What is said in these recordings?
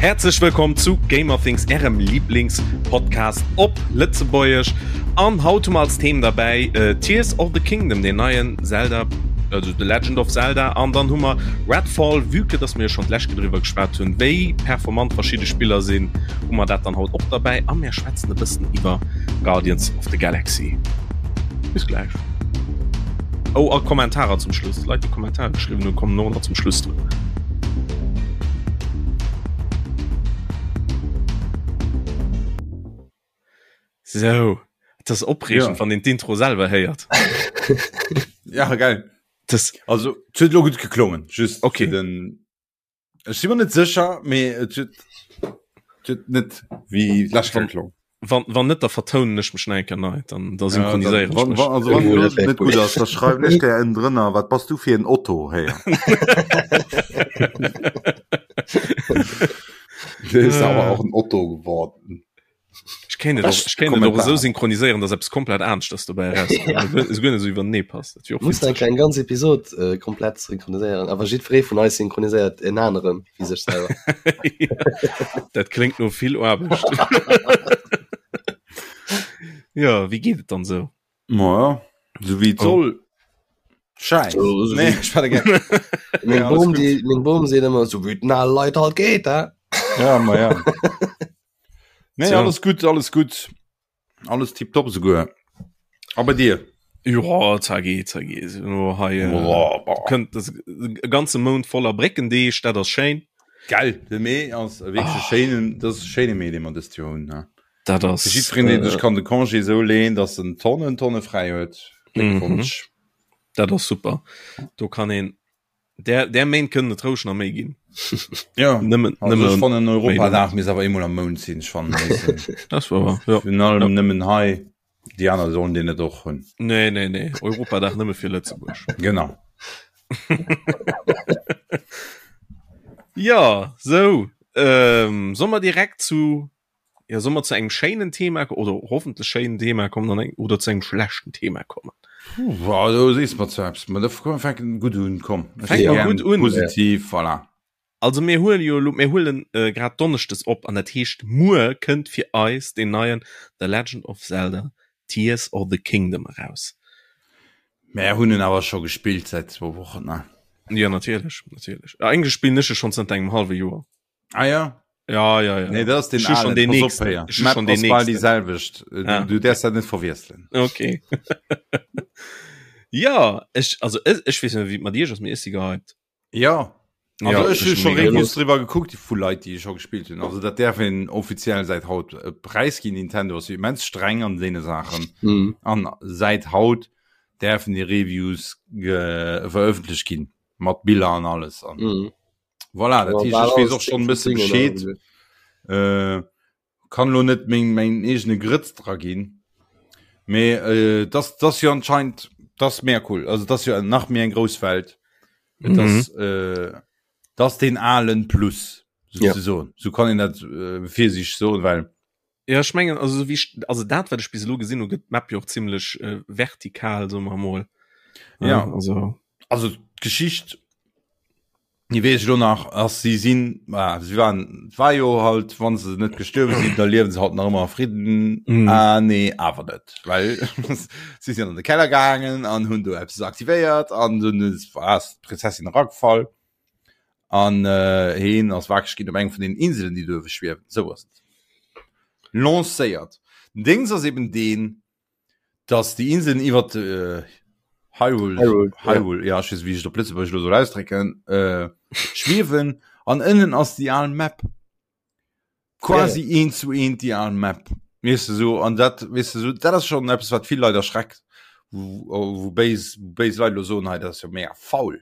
Häerzlech wëllkomm zu Gamerthings, ärem Lieblingspodcast op Lëtzebuergesch. An haut hu mer als Theme derbäi äh, Tears of the Kingdom, den neien Zelda, also The Legend of Zelda. An dann hu mer Redfall, vue que dass mir jo schonn d'lescht Kéier driwwer geschwat hunn, wéi performant verschidde Spiller sinn, hu mer dat dann haut och derbäi. A mir schwätzen e bëssen iwwer Guardians of the Galaxy. Bis gläich. Oh, a Kommentarer zum Schluss. Leit, déi Kommentare geschriwwen hunn, kommen och nach zum Schluss drun. Sou, et ass opreegend, Ja. wann een d'Intro selwer héiert. Ja, geil. Das, Also, et huet lo gutt geklongen. Just Okay. fir den Ech si mer net sécher, mee et huet et huet net wéi d'lescht Kéier geklongen. Wann, wann net, da vertounen ech mech nach eng Kéier nei, dann, da synchroniséieren ech Wann, mech. wann, also wann Oh, lo dat wär net cool. gutt ass, da schreiwen ech der en drënner, wat bass du fir en Otto, héier. Der ist awer och en Otto geworden. Ech kéint et och, ech kéint et och esou synchroniséieren, dass eppes komplett aneschters dobäi erauskënnt. Ja. Esou guer net esou iwwernee passt. Dat wier och Muss eng witzeg. kleng ganz Episod äh, komplett synchroniséieren, awer jiddweree vun eis synchroniséiert en aneren wéi sech selwer. Dat kléngt no vill Aarbecht. Ja, wéi geet et dann esou? Ma sou wéi et Oh. soll. Scheiß. So, so Nee, wie- ech war der Meng Ja, alles Bom, gut. die, meng Bom seet ëmmer, sou wéi et den ale Leit halt geet, hä? Ja, ma ja. Nee, Tja. alles gut, alles gut. Alles tipptopp souguer. A bei dir? Ja, zergeet, zergeet. Nur hei, äh, Boah, boah. kënnt das, e ganze Mount voller Bréckendeeg, dat ass schéin. Geil, de Mee ass e wierklech Ah. schéinen, dat ass e schéine Mee, dee mer dëst Joer hunn. Ne? Dat ass. Fir jiddwereen, deen äh, sech kann de Congé esou leen, datt en Tonnen, Tonne fräi huet. Gléckwonsch. Dat ass super. Do kann een Der, der Méint kënnen et roueg nach méi ginn. Ja nëmmen, also nëmmen ech fannen méi Europadag misst awer eemol am Mount sinn. Ech fannen Das war wahr, ja. Virun allem Ja. nëmmen hei, déi aner sollen deen net och hunn. Nee, nee, nee. Europadag nëmme fir Lëtzebuerg. Genau. Ja, sou. Ähm, soll mer direkt zu Ja, soll mer zu engem schéinen Thema oder hoffentlech schéinen Thema kommen an eng, oder zu engem schlechten Thema kommen? Puh, also sees mer zu eppes. Ma da komm, fänken gutt un, komm. Ech Fänke si mer gern gutt un. Positiv, voilà. Also mir huelen jo elo, mir huelen äh, grad Donneschdes op an dat heescht muer kënnt fir eis deen neien The Legend of Zelda Tears of the Kingdom eraus. Mär hunn en awer scho gespillt säit zwou Wochen, ne? Ja, natierlech, natierlech. Eigentlech spillen ech e schonn zënter engem hallwe Joer. Ah ja? Ja, ja, ja. Nee, dat ass den Ech hu schon alen. den Pass op, nächsten. Héier. Ech hu Map schon den ass bal déi nächsten. selwecht. Du, Ah. du däerfs dat net verwiesselen. Okay. ja, ech, also ech, ech weess net, wéi et mat iech ass, mee ech si gehypt. Ja. Also Ja, ech hu ech scho mega Reviews Lust. driwwer gekuckt vu Leit, déi scho gespillt hunn. Also dat däerf een offiziell säit haut äh, präisginn. Nintendo ass jo immens streng an deene Saachen. Mhm. An säit haut däerfen déi Reviews ge verëffentlecht ginn mat Biller an alles. An Mhm. Voilà, dat heescht, ech weess och schonn e bësse Bescheed. Äh, kann lo net meng meng eegene Grëtz dra ginn. Mee äh, das das jo anscheinend das mega cool. Also das jo nach méi eng grouss Welt. Et ass mhm. äh, das den alen Plus Ja. sozusagen. So kann een dat äh, fir sich soen, well Ja, ech mengen, also, so wéi ech, also dat, wat ech bis elo gesinn hu, gëtt d'Map jo och zimmlech äh, vertikal, soe mer emol. Ja. Also, also d'Geschicht déi weess ech lo nach ass si sinn ah, si waren et war jo halt wann se net gestuerwe sinn da liewen se haut nach ëmmer a Fridden Mhm. ah nee awer net well si sinn an de Keller gaangen an hunn do eppes aktivéiert an dunn ass ass d'Prinzessin eragefall an äh, heen ass wakereg ginn op eng vun den Inselen déi duerwe schwiewen sou ass et lancéiert. Den Dings ass eben deen dass déi Inseln iwwer äh, Hyrule, Hyrule, ja. Hyrule ja, ech weess, wéi ech et op Lëtzebuergesch elo soll ausdrécken, äh, schwiewen an ënnen ass déi al Map. Quasi ja, ja. eent zu eent déi al Map. Weess de so, an dat, weess de so, dat ass schon eppes, wat vill Leit erschreckt, wou, wou béis, béis Leit elo soen, hei, dat ass jo mega faul.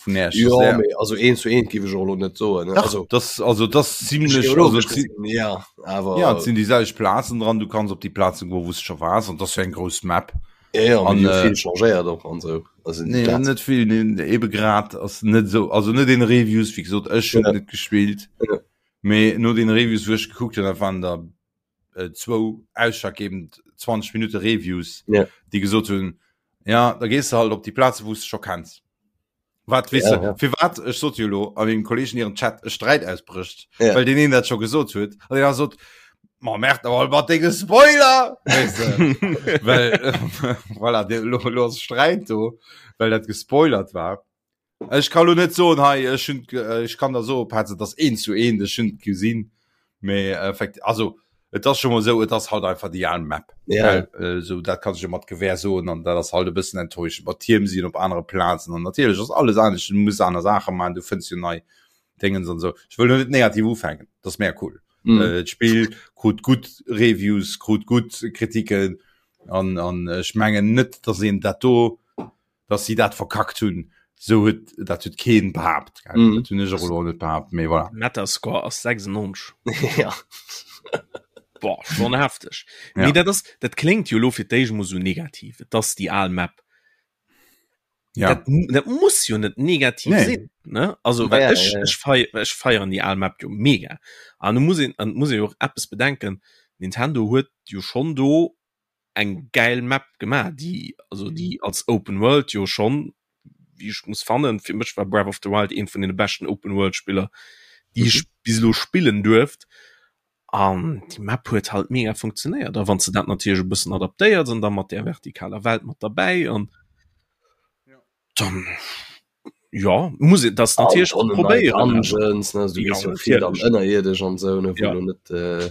Vun Äerch. Jo, mee also eent zu eent géif ech och elo net soen. Dach, also, das, also das ziemlech also, ja, awer ja, et sinn déi selwecht Plazen dran, du kanns op déi Plazen goen, wou s de scho waars, an das jo eng grouss Map. Ja, ja, an, äh, vill changéiert och an sou. Also, nee, net vill, nee, ebe grad ass net sou, also net den Reviews, wéi gesot, ech hunn ja. net gespillt. Ja. Mee no den Reviews, wou ech gekuckt hunn, dat waren der äh, zwou ausschlaggebend 20 Minute Reviews, ja. déi gesot hunn, ja, da gees du halt op déi Plaze, wou s de scho kenns. Wat weess ja, du, ja. firwat ech sot jo lo a mengem Kolleegen hiren Chat e Sträit ausbrécht, ja. well deen een dat scho gesot huet an deen sot ma merkt awer mat denge Spoiler weess de. well voilà, de, lo, lo ass Sträit do, well dat gespoilert war. Ech kann lo net soen hei ech hunn ech kann der soen Petz, et ass eent zu eent, ech hunn et gesinn, mee effekt also et ass scho mol esou, et ass halt einfach déi al Map. Ja. Well, äh, sou dat kann ech jo mat Gewähr soen an dat ass halt e bëssen enttäuschend. Mat Tierm sinn op anere Plazen an natierlech ass alles anescht, du muss aner Saache maachen, du fënns jo nei Dingens an esou. Ech wëll lo net negativ ufänken, dat ass mega cool. Mm. Äh, d'Spill krut gutt Reviews, krut gutt Kritiken an an ech mengen net, datt een dat do dass si dat verkackt hunn, sou huet dat huet keen behaapt, gell? Mm. Dat hunn ech och elo net behaapt, mee voilà. Metascore ass 96. ja. Boah, schon hefteg. Ja. Nee, dat ass, dat kléngt jo lo fir d'éischt mol sou negativ. Et ass déi al Map. Ja. Dat, dat muss jo net negativ Nee. sinn, ne? Also, Ja, well ja, ech, ja. ech fei, ech feieren déi al Map jo mega. An du muss een, an muss ee jo och eppes bedenken, Nintendo huet jo schonn do eng gäil Map gemaach, déi also déi als Open World jo schonn, wéi ech muss fannen, fir mech war Breath of the Wild eent vun deene beschten Open World Spiller, déi ech Mhm. bis elo spillen duerft. An déi Map huet halt mega funktionéiert. A wann s de dat natierlech e bëssen adaptéiers an da mat där vertikaler Welt mat derbäi an dann ja muss et das natierlech Tonnen nei probéieren. Dungeons, ne, also du Ja, gees jo vill dann natierlech. ënnerierdesch an sou, ne, wou Ja. lo net äh,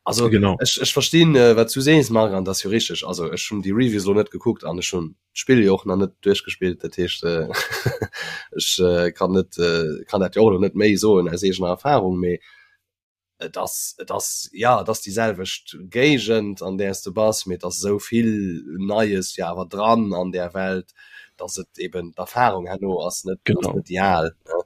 also Genau. ech, ech verstinn äh, wat du sees Marc an dat ass jo richteg. Also ech hunn déi Reviews lo net gekuckt an ech hunn d'Spill jo och nach net duerchgespillt, dat heescht äh, ech äh, kann net äh, kann dat jo och lo net méi soen aus eegener Erfahrung, mee et ass et ass ja et ass déi selwecht Géigend an där s de bass, mee et ass esou vill Neies jo awer dran an där Welt, dass et eben d'Erfahrung herno ass net ass Genau. net déi al ne.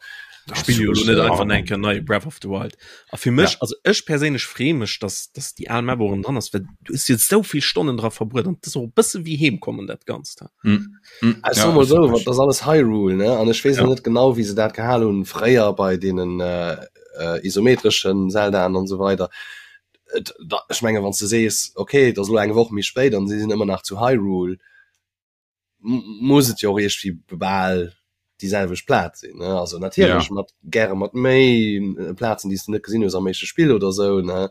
Ech spille jo elo net einfach eng Kéier nei Breath of the Wild. A fir mech, Ja. also ech perséinlech freeë mech, dass dass déi al Map och erëm dran ass, well du hues jo esou vill Stonnen dra verbruet an et ass och e bësse wéi heem kommen dat Ganzt. Mm. Mm. Ech Ja, soe mol ass esou, wirklich. dat ass alles Hyrule ne an ech weess Ja. och net genau wéi se dat gehal hunn fréier bei deenen äh, äh, isometreschen Zeldaen an esou weider. Et, da, ech menge wann s de sees, okay, et ass elo eng Woch méi spéit an si sinn ëmmer nach zu Hyrule, muss et jo och iergendwéi bal déi selwecht Plaz sinn, ne? Also natierlech Ja. mat gäre mat méi Plazen, déi s de net gesinn hues am éischte Spill oder esou, ne?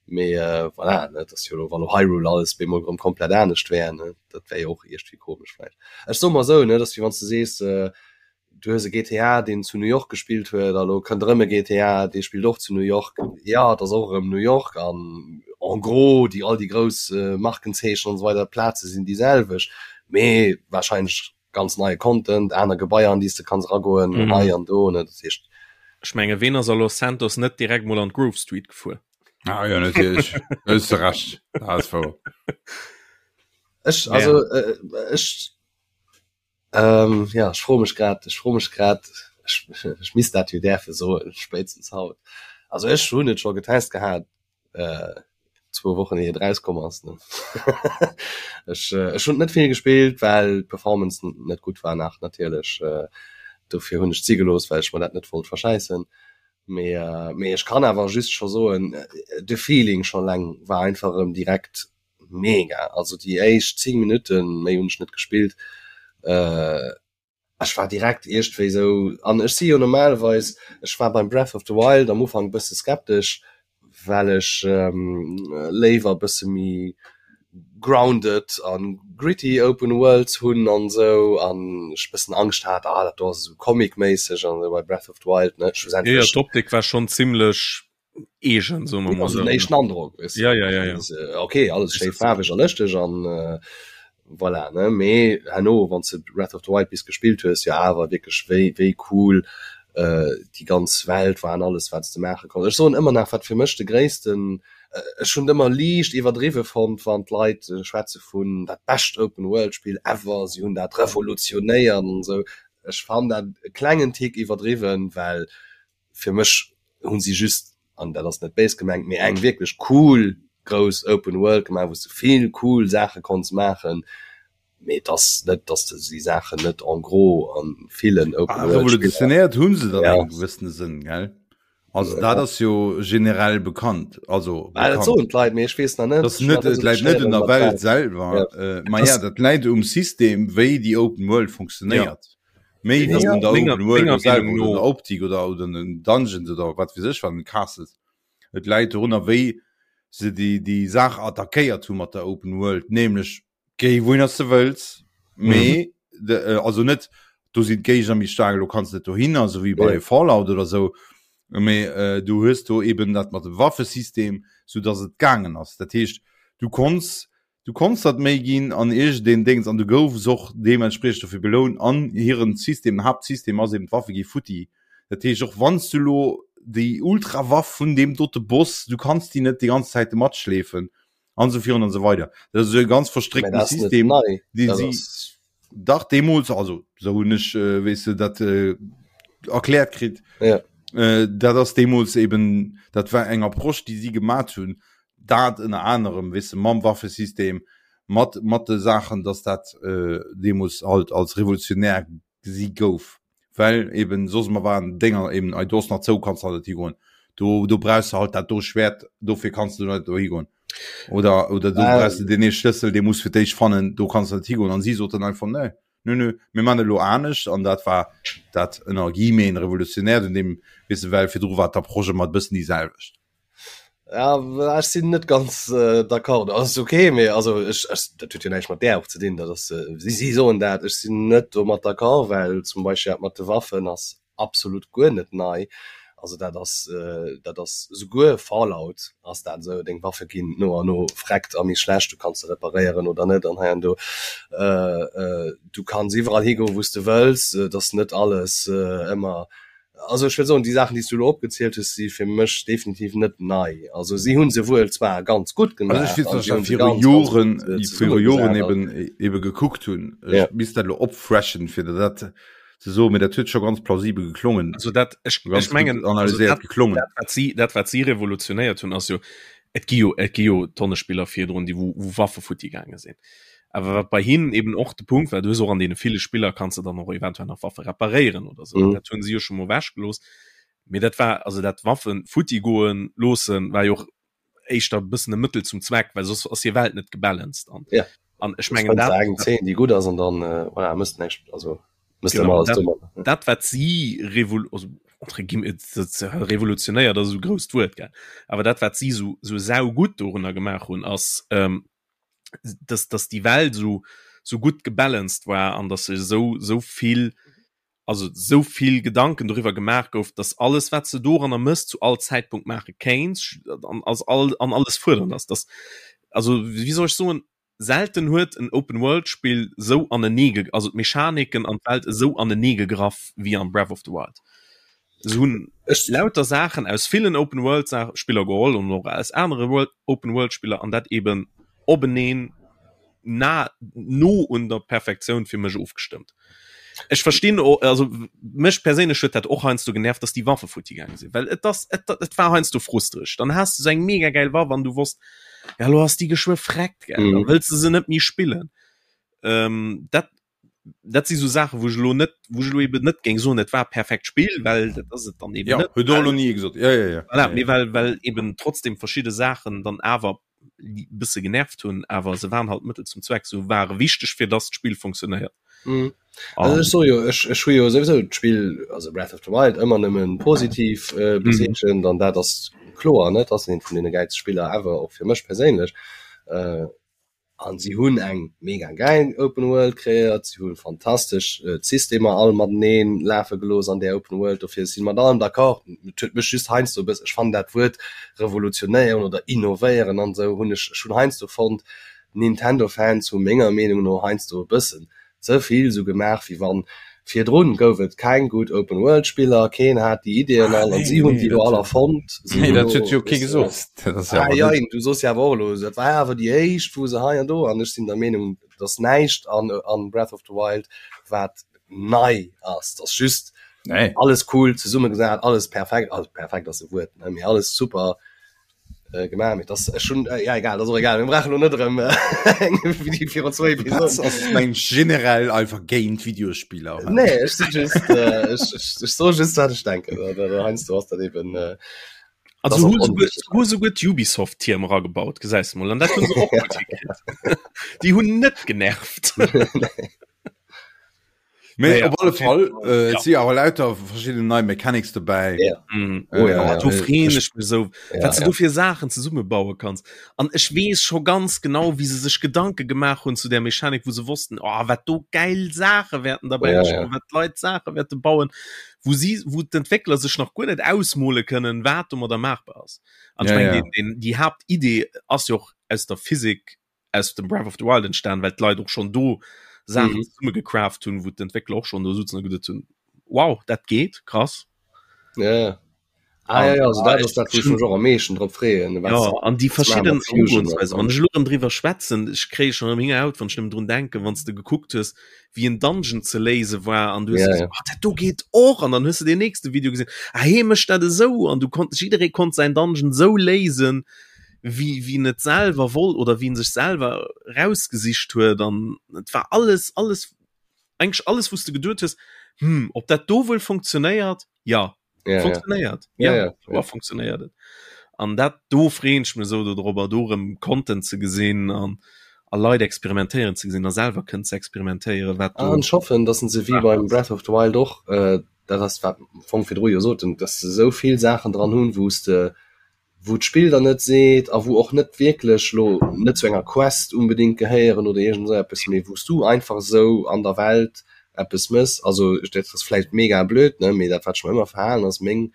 Mee äh, voilà, ne, et ass jo elo, wann elo Hyrule alles bemol erëm komplett anescht wär, ne, dat wär jo och iergendwéi komesch vläicht. Ech soe mer esou, ne, et ass wéi wann s de sees, äh, du hues e GTA, deen zu New York gespillt huet, a lo kënnt erëm e GTA, dee spillt och zu New York. Jo, et ass och erëm New York an en gros déi all déi grouss Markenzeechen an esou weider, d'Plaze sinn déi selwecht, mee warscheinlech ganz neie Content, aner Gebaier an déi s de kanns eragoen, hei an do, ne, dat heescht. Ech menge ween ass a Los Santos net direkt mol an d'Grove Street gefuer? Ah jo, natierlech, do hues de Recht, dat ass wouer. Ech, also ech. Ähm, ja, ech froe mech grad, ech froe mech grad, ech, ech misst dat jo däerfe soen, spéitstens haut. Also ech hunn et scho getest gehat, äh, zwou Wochen ier et erauskomm ass, ne. Ech, ech hunn et net vill gespillt, well d'Performance net gutt war nach natierlech. Dofir hunn ech et si gelooss, well ech mer dat net wollt verschäissen. Mee, mee ech kann awer just scho soen, de Feeling scho leng war einfach erëm direkt Mega, also déi éischt 10 Minutten, méi hunn ech net gespillt, ech war direkt iergendwéi sou, an ech si jo normalerweis, ech war beim Breath of the Wild am Ufank e bësse skeptesch, well ech léiwer e bësse méi grounded a gritty Open Worlds hunn an sou, an ech e bëssen Angscht hat, ah dat do ass esou Comic-méisseg an esou bei Breath of the Wild, ne, schlussendlech. Jo, jo, d'Optik war schonn zimlech eegen so ja, also den éischten Androck weißt du? ja, ja, ja, ja. Also, okay alles schéi faarweg a lëschteg an äh, voilà ne mee herno wann du Breath of the Wild bis gespillt hues jo awer wierklech wéi wéi cool äh, déi ganz Welt war an alles wat du maache konns. Ech soen ëmmer nach wat fir mech de gréissten äh, ech hunn ëmmer liicht iwwerdriwwe fonnt wann d'Leit äh, schwätze vun dat bescht Open World Spill ever, si hunn dat revolutionéiert an esou. Ech fannen dat e klengen Tick iwwerdriwwen, well fir mech hunn si just, an dat ass net béis gemengt, mee eng wierklech cool grouss Open World gemaach, wou s de vill cool Saache konns maachen. Mee et ass net, dass de déi Saachen net en gros a villen Open World Spiller. Revolutionéiert hu se dann engem gewëssene Sënn, gell? Also dat ass jo generell bekannt, also bekannt. Dat soen d'Leit, mee ech weess nach net. Dat net, et läit net un der Welt selwer, ma ja, dat läit um System, wéi déi Open World funktionéiert. Méi wéi un der Open World selwer oder un der Optik oder un den Dungeons oder wat weess ech wat, den Castles. Et läit dorunner, wéi se déi déi Saach attackéiert hu mat der Open World, nämlech Géi wouhinner s de wëlls, mee mm. de, äh, also net do sinn d'Géigner méi staark, lo kanns net dohinner, so wéi bei ja. Fallout oder sou. Mee äh, du hues do eben dat mat dem Waffesystem, sou dass et gaangen ass. Dat heescht, du konns du konns dat méi ginn an iergendeen Déngs an du goufs och deementspriechend dofir belount an hiren System, den Haaptsystem ass eben d'Waffe gi futti. Dat heescht och wann s du lo déi Ultrawaff vun deem dote Boss, du kanns déi net déi ganz Zäite matschleefen. an so virun an so weider das ist e ganz verstrickten System den sie dach deemools also so hunn ech äh, weess du dat äh, erkläert kritt ja. äh, dat ass deemools eben dat war eng Approche déi sie gemat hunn dat ënner anerem weess du mam Waffesystem mat mat de Saachen dass dat äh, deemools halt als revolutionär gesi gouf, well eben soss mer waren Dénger eben ei do ass nach zou kanns halt net higoen, do do brauchs de halt dat do Schwert dofir kanns du net do higoen oder oder do brauchs de deen ee Schlëssel dee muss fir d'éischt fannen do kanns de net higoen an si soten einfach nee nö nö mir man elo anescht an dat war dat ënner guillemeten revolutionäert un deem weess de well virdru war d'Approche ëmmer e bëssen déi selwecht. Ja, ech sinn net ganz äh, d'accord. Das ist okay, mee also ech, ech, dat huet jo näischt mat där och ze dinn. Dat ass, äh, si, si soen dat, ech sinn net domat d'accord, well zum Beispill dat mat de Waffen ass absolut guer net nei. Also dat ass, äh, dat ass souguer Fallout ass dat esou, deng Waffe ginn no an no vreckt a méi schlecht, du kanns se reparéieren oder net an hei an do. Äh, äh, du kanns iwwerall higoen, wou s de wëlls, et ass net alles äh, ëmmer Also ech wëll soen, déi Saachen, déi s du elo opgezielt hues, si fir mech definitiv net nei. Also si hu se wuel zwar ganz gutt gemaach. Also ech weess, dass ech dat viru Joren, viru Joren eben, eben gekuckt hunn. Ech misst dat elo opfreshen, fir der dat ze soen, mee dat huet scho ganz plausibel geklongen. Also dat, ech, ech mengen, analyséiert geklongen. Dat, wat si, dat, wat si revolutionéiert hunn, ass jo, et gi jo, et gi jo Tonne Spiller virdrun, déi wou, wou Waffe futti gaange sinn. Awer wat bei hinnen eben och de Punkt war, du hues och an deene ville Spiller kanns de dann och eventuell nach Waffe reparéieren oder sou. Mm. Dat hunn si jo scho mol ewechgelooss. Mee dat war, also dat Waffen futti goen loossen, war jo och éischter e bëssen e Mëttel zum Zweck, well soss ass hir Welt net gebalanced an. Ja. An ech mengen dat. Eng 10, déi gutt ass an dann, äh, voilà, mësst näischt, also mësst genau, alles dat, dat wat si revol also, entre guillemets, revolutionéiert ass esou grousst Wuert, gell. Awer dat wat si sou, sou saugutt dorunner gemaach hunn, ass, ähm, dass, dass déi Welt so, so gutt gebalanced war an dass se sou, sou vill, also sou vill Gedanken doriwwer gemaach gouf, dass alles wat se doranner mëss zu all Zäitpunkt maache kéints an als all an alles fuerdernd ass. Dass, also wéi soll ech soen, selten huet en Open World Spill sou anenee, also d'Mechaniken an d'Welt esou anenee gegraff wéi an Breath of the Wild. Se hunn lauter Saachen aus villen Open World Spiller geholl an och aus anere World Open World Spiller an dat eben openeen na no un der Perfektioun fir mech ofgestëmmt. Ech verstinn also mech perséinlech huet dat och heiansdo genervt, dass déi Waffe futti gaange sinn, well et ass et et war heiansdo frustreg. Dann has de sou eng mega gäil Waff an du wosst, ja lo ass déi geschwë vreckt, gell, da wëlls de se net méi spillen. Ähm, dat dat si sou Saachen, wou ech elo net, wou ech elo eben net géing soen, et war perfekt Spill, well dat ass et dann eben ja, net. Huet och elo ni ee gesot. Ja, ja, ja. Voilà, mee well, well eben trotzdem verschidde Saachen dann awer e bësse genervt hunn, awer se waren halt Mëttel zum Zweck, se ware wichteg fir dass d'Spill funktionéiert. Mhm. Also ech soe jo, ech, ech hu jo souwisou d'Spill, also Breath of the Wild, ëmmer nëmmen positiv äh, bezeechent an dat ass kloer, ne, dat ass eent vun deene gäilste Spiller ever, och fir mech perséinlech. Äh, An si hunn eng mega gäil Open World kreéiert, si hu fantastesch d'Systemer all matenee lafe gelooss an där Open World. Dofir, ech si mat allem d'accord. Et huet mech just heiansdo e bëss, ech fannen dat Wuert revolutionéieren oder innovéieren an esou hunn ech, ech hunn heiansdo fonnt, Nintendo-Fans hu menger Meenung no heiansdo e bëssen ze vill sou gemaach wéi wann virdrun gouf et keng gutt Open World Spiller, keen hat déi Ideeën all an si hunn déi lo all erfonnt. Nee, dat huet jo kee gesot. Ah, jein, du soos jo awer och elo, dat war awer déi éischt wou se hei an do an ech sinn der Meenung, dass näischt an an Breath of the Wild wat. nei ass, dass just nee. alles cool zesummegesat, alles perfekt, also perfekt ass e Wuert, ne, mee alles super äh, gemaach. Mee das schon äh, ja egal, das och egal. Mir brauchen lo net erëm äh, eng Video virun zwou Episoden. Ass meng generell einfach géint Videospieler. Nee, ech si just äh, ech, ech, ech so just wat ech denken. Heiansdo ass dat eben äh, Also hu souguer, hu souguer d'Ubisoft-Tierm eragebaut, gesäis de mol. An dat hunn se och gutt hikritt. Déi hunn net genervt. Mee Naja, op alle auf jeden Fall, Fall. äh, et Ja. si awer lauter verschidden nei Mechanics dobäi. Ja. Mm. Oh ja, Oh, ja. do freeën Ech, ech mech sou, ja, wat du ja. do fir Saachen zesummebaue kanns. An ech weess scho ganz genau, wéi se sech Gedanke gemaach hunn zu där Mechanik, wou se wossten, oh, wat do gäil Saache wäerten derbäi Ja, entstoen, ja. wat d'Leit Saache wäerte bauen. wou si wou d'Entwéckler sech nach guer net ausmole kënnen, wat domadder maachbar ass. An ech Ja, mengen, ja. den, den, déi Haaptidee ass jo och aus der Physik aus dem Breath of the Wild entstan, well d'Leit och schonn do Saachen Mhm. zesumme gecraft hunn, wou d'Entwéckler och schonn do sutzen a geduet hunn, wow, dat geet, krass. Ja, ja. Ah, ja, An ja, also ah, dat ech ass dat, wou ech ech mech och am meeschten drop freeën, wat Ja, se an déi wat se maache verschidden mat Fusion Erugoensweisen, an wann ech elo erëm driwwer schwätzen, ech kréie schonn erëm Héngerhaut, wann ech nëmmen drun denken, wann s de gekuckt hues, wéi en Dungeon ze léise war an du hues ja, gesot, ja. oh, dat do geet och an dann hues de den nächste Video gesinn, ah, hee mécht dat esou an du konnt jidderee konnt säin Dungeon esou léisen, wéi wéi en et selwer wollt oder wéi en sech selwer rausgesicht huet an et war alles alles eigentlech alles, wou s de geduet hues, hm, ob dat do wuel funktionéiert, ja. ja, funktionéiert ja. ja, ja, ja. ja. funktionéiert et an dat do freeën ech mech sou dodrobber do rëm Content ze gesinn an a Leit experimentéieren ze gesinn a selwer kënnen ze experimentéieren wat do An ech hoffen, dass se wéi beim Breath of the Wild och, äh, dat ass wat am Fong virdru jo soten, dass se esou vill Saachen dran hunn, wou s de wou d'Spill der net seet a wou och net wierklech lo net zu enger Quest unbedingt gehéieren oder iergend esou eppes, mee wou s du einfach esou an der Welt eppes mëss. Also dat ass vläicht mega blöd, ne, mee dat wat ech mer ëmmer verhalen ass meng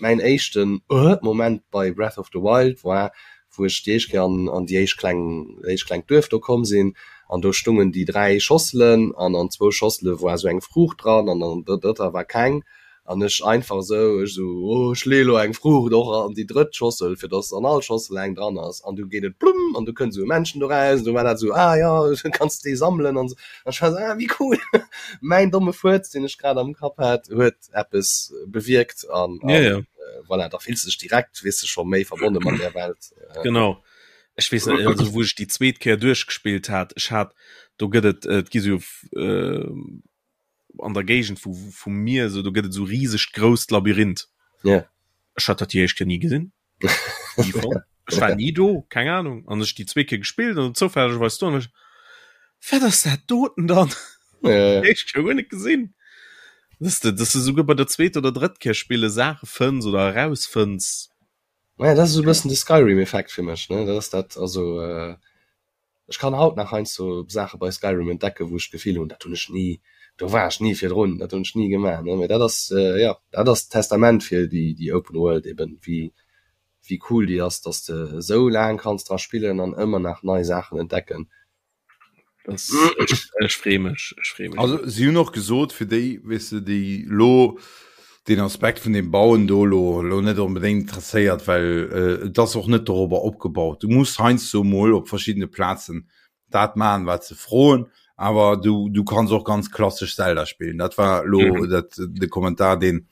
mäin éischten Moment bei Breath of the Wild war, wou ech déi éischt Kéier an an déi éischt kleng éischt klengt Duerf do komm sinn an do stungen déi 3 Schosselen an an zwou Schossele war esou eng Fruucht dran an an der drëtter war keng An ech einfach esou, ech esou, oh, ech leeë lo eng Fruucht och an déi drëtt Schossel, fir dass an all Schossel eng dran ass. An du geet et plumm an du kënnt esou e Männchen doraus an du war dat esou, ah jo, kanns de déi sammelen an esou. An ech war esou, ah, wéi cool! Mäin domme Fuerz, deen ech grad am Kapp hat, huet eppes bewierkt an, Ja, an ja. voilà, da fills de dech direkt, weess de, scho méi verbonne mat där Welt. Genau. Ech weess net, also wou ech déi zweet Kéier duerchgespillt hat, ech hat, do gëtt et, et gi sou an der Géigend vu vu mir sou do gëtt et sou risegt grousst Labyrinth. Ja. Ech hat dat déi éischt Kéier ni gesinn. Ni fonnt. Ech war ni do, keng Ahnung. An ech déi zweet Kéier gespillt an zoufällegerweis do an ech wat ass dat doten dann? Ja, ja. Déi éischt Kéier guer net gesinn. Dass de dass de souguer bei der zweeter oder drëtt Kéier spille Saache fënns oder erausfënns. Ja, dat ass esou e bëssen de Skyrim-Effekt fir mech, ne? Dat ass dat, also äh, Ech kann haut nach heiansdo Saache bei Skyrim entdecken, wou ech d'Gefill hunn, dat hunn ech ni, do war ech ni virdrun, dat hunn ech ni gemaach, ne. Mee dat ass, jo, dat ass d'Testament fir déi, déi Open World eben, wéi, wéi cool déi ass, dass de esou laang kanns dra spillen an ëmmer nach nei Saachen entdecken. Das, ech, ech free mech, ech free mech. Also si hunn och gesot, fir déi, weess de, déi lo deen Aspekt vun dem Bauen do lo lo net onbedéngt interesséiert, well et ass och net dorobber opgebaut. Du muss heiansdo mol op verschiddene Plazen dat maachen, wat se froen, awer du du kanns och ganz klassesch Zelda spillen. Dat war lo mhm. dat de Kommentar, deen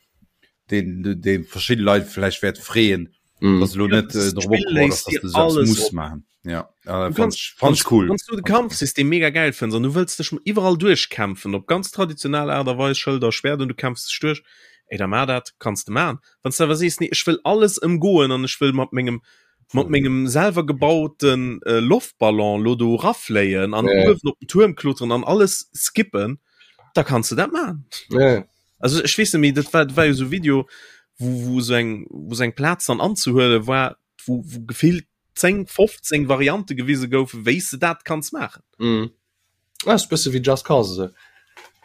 deen deen verschidde Leit vläicht wäert freeën, mhm. dass lo net äh, dorobber opgebaut ass, dass du alles muss maachen. Ja, äh, fand, fand ich cool. Wann du de Kampfsystem mega geil fënns an du wëlls dech iwwerall duerchkämpfen op ganz traditionell Aart a Weis, Schëlder, Schwert an du kämpfs dech duerch, ey da mar dat, kanns de man. Wann s de awer sees, nee ech wëll alles ëmgoen an ech wëll mat mengem mat mengem selwer gebauten äh, Loftballon lo do rafléien an Ja. uewen op den Tuerm kloteren an alles skippen, da kanns de dat man. Ja. Also ech weess net méi, dat war, dat war jo sou Video, wou, wou sou eng, wou sou eng Plaz dann anzehuele war, wou, wou gefillt 10, 15 Variante gewise goufen, wéi s de dat kanns maachen. Mm. Ah, ist bësse wéi Just Cause esou.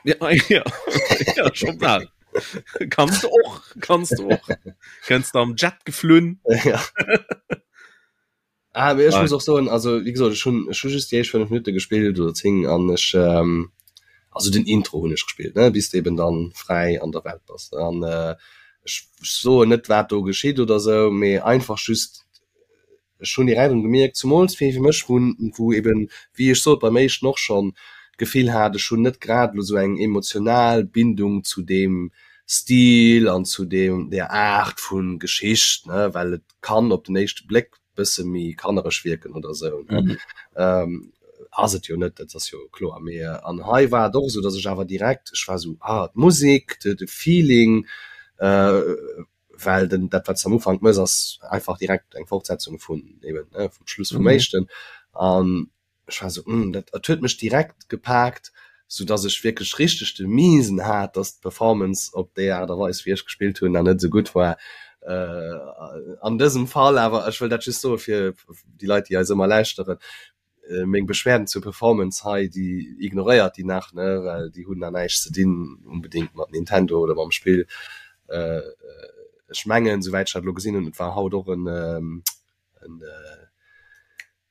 Ja, ja, ja scho bal. Kanns de och, kanns de och. Kënns de am Jet geflunn. Ja. Ah, mee ech muss och soen, also wéi gesot, ech hunn ech hu just déi éischt 5 Minutte gespillt oder 10 an ech ähm, also den Intro hunn ech gespillt, ne, bis de eben dann fräi an der Welt bass. An äh, ech soen net wat do geschitt oder sou, mee einfach just ech hunn direkt erëm gemierkt, zumools fir fir mech, wou wou eben, wéi ech sot beim éischten och schonn, d'Gefill hat, ech hunn net grad elo sou eng emotional Bindung zu deem Stil an zu deem där Aart vu Geschicht, ne, well et kann op den éischte Bléck bësse méi kannereg wierken oder sou, ne. Ass et jo net, dat ass jo kloer, mee an hei war et och esou, datt ech awer direkt, ech war esou, ah d'Musek, de de Feeling, well den dat wat s de am Ufank mëss ass einfach direkt eng Fortsetzung vun eben, ne, vum Schluss vum éischten an ech war sou, hm, dat dat huet mech direkt gepaakt, sou dass ech wierklech richteg de Miesen hat, dass d'Performance op déi Aart a Weis wéi ech gespillt hunn, nach net esou gutt war. An dësem Fall awer, ech wëll dat just soe fir déi Leit, déi eis ëmmer lauschteren, meng Beschwerden zur Performance hei, déi ignoréiert déi nach, ne, well déi hunn nach näischt ze dinn unbedéngt mat Nintendo oder mam Spill. Ech mengen, souwäit ech dat elo gesinn hunn, et war haut och en en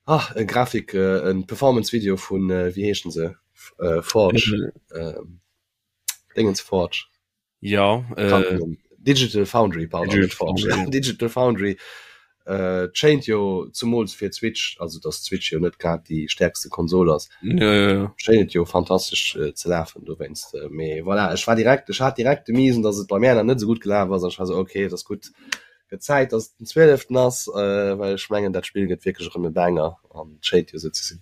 Ah e Grafik en Performance Video vun wéi heeschen se Forge Dingens Forge ja Digital Foundry pardon net Forge Digital Foundry schéint jo zumools fir d'Switch also dass d'Switch jo net grad déi stäerkste Konsol ass schéint et jo fantastesch ze lafen dowéinst mee voilà ech war direkt ech hat direkt de Miesen dass et bei mär nach net esou gutt gelaf ass an ech war esou ok et ass gutt Gëtt Zäit dass et den 12 ass, well ech mengen dat Spill gëtt wierklech erëm e Banger an et schéint jo esou ze sinn.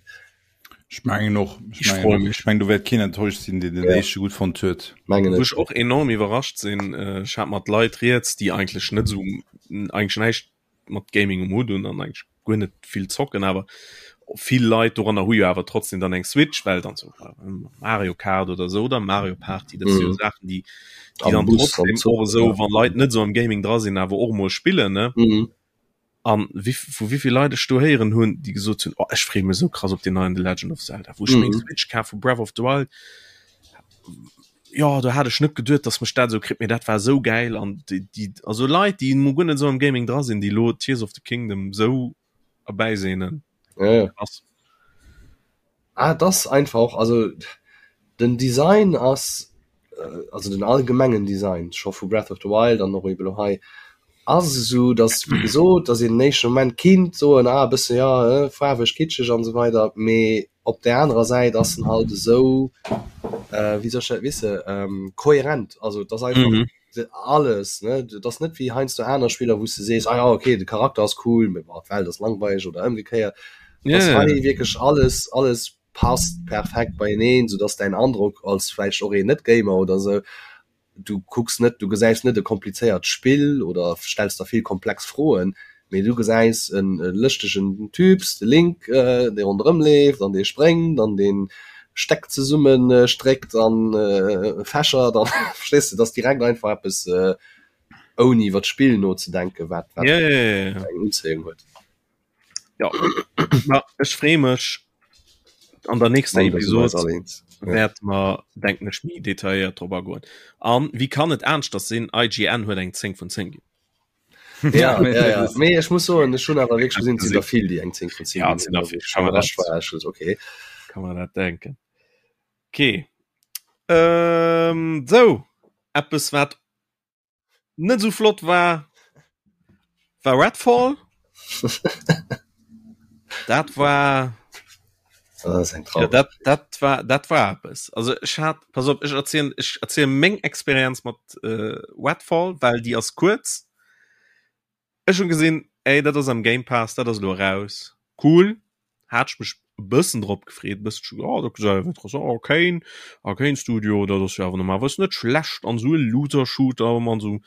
Ech mengen och, ech mengen och, ech mengen do wäert keen enttäuscht sinn, deen den éischte gutt fonnt huet. Mengen Wou ech och enorm iwwerrascht sinn, ech hat mat Leit rieds, déi eigentlech net esou, eigentlech näischt mat Gaming um Hutt hunn an eigentlech guer net vill zocken, awer vill Leit doranner hu jo awer trotzdem dann eng Switch, well dann so Mario Kart oder so oder Mario Party, dat si jo mhm. Saachen, déi, déi dann trotzdem och esou, wann Leit net so am Gaming dra sinn, awer och mol spillen ne. Mhm. An wie, vu wievill Leit ech do héieren hunn, déi gesot hunn, oh, ech freeë mech sou krass op den neien The Legend of Zelda, wou ech meng mhm. Switch kaf vu Breath of the Wild. Jo, do hat ech net geduet, dass mech dat esou kritt, mee dat war esou gäil an déi, déi, also Leit, déi mo guer net esou am Gaming dra sinn, déi lo Tears of the Kingdom esou erbäisehnen. Ja, ja. Krass. Ah, et ass einfach, also den Design ass, also den allgemengen Design scho vu Breath of the Wild an och ebe lo hei, ass esou, dass wéi gesot, dass een den éischte Moment kinnt soen, ah e bësse jo, faarweg, kitscheg an esou weider, mee op där anerer Säit ass en halt esou, wéi soll ech dat wisse, kohärent, also et ass einfach mm -hmm. alles, ne, et ass net wéi heiansdo aner Spiller, wou s de sees, ah ja okay, de Charakter ass cool, mee boah, d'Welt ass langweileg oder ëmgekéiert. Yeah. Ass hei wierklech alles, alles passt perfekt beieneen, soudass däin Androck als vläicht och een Net-Gamer oder esou Du kucks net, du gesäis net e komplizéiert Spill oder stells der vill komplex Froen, mee du gesäis e lëschtegen Typs, de Link, dee ronderëm leeft an dee spréngt an dee Stäck zesumme stréckt an fächert an, verstees de, et ass direkt einfach eppes ouni iwwer d'Spill nozedenken, wat eng Unzéiung huet. Ja, ma ech freeë mech an der nächster Episode wäert mer denken ech méi detailléiert drop agoen. An wéi kann et aneschters sinn, IGN huet eng 10 vun 10 ginn. Ja, ja, ja. Mee ech muss soen, ech hunn awer wierklech gesinn, et sinn der vill, déi eng 10 vun 10 Ja, et sinn der vill. Kann man dat, war ech okay. Kann man dat denken. Okay. Ähm, sou, eppes wat net sou flott war war Redfall dat war ja, dat, dat war dat war eppes also ech hat pass op ech erzielen ech erzielen meng Experienz mat äh, Redfall well déi ass kuerz Ech hunn gesinn, ey, dat ass am Game Pass, dat ass elo eraus, cool. Hat ech mech e bëssen drop gefreet, e bëssen, oh, dat gesäit awer interessant, Arkane, Arkane Studio, dat ass jo awer normalerweis net schlecht an esou e Looter-Shooter mat esou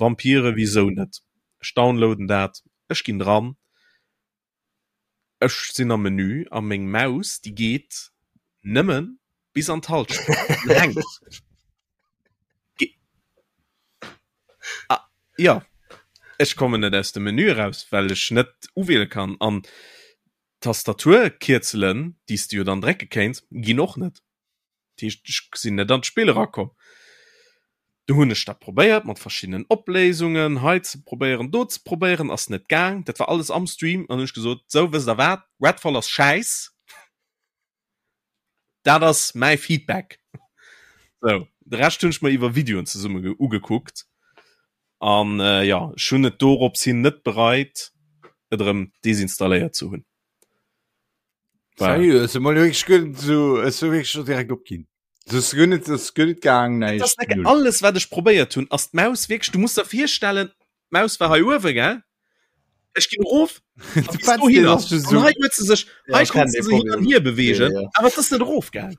Vampire, wisou net? Ech downloaden dat, ech ginn dran, Ech sinn am Menü a meng Maus déi geet nëmmen bis an d'Halschent an hänkt. Ah, jo, ech kommen net aus dem Menü eraus, well ech net uwiele kann an d'Tastaturkierzelen, déi s de jo dann drécke kéints, ginn och net. Dat heescht, ech sinn net an d'Spill erakomm. Du hunn ech dat probéiert mat verschiddenen Opléisungen, hei ze probéieren, do ze probéieren, ass net gaang. Dat war alles am Stream an hunn ech gesot, sou wësst der wat, Redfall ass schäiss, dat ass mäi Feedback. Sou, de Rescht hunn ech mer iwwer Videoen zesumme ugekuckt an jo, ech hunn et dorops hin net bereit, et erëm desinstalléiert ze hunn. Seriö, ech mol wierklech guer net esou, ech hu wierklech scho direkt opginn. Das ass guer net, das ass guer net gaang, Das ass näischt, null. alles wat ech probéiert hunn, ass d'Maus wierklech, du muss der virstellen, d'Maus war hei uewe, gell? Ech ginn erof a bis dohinner. An hei huet se sech, Ja, hei ech kenn konnt se dee se hin an Problem. hier bewegen, Ja, ja. awer et ass net erofgaangen.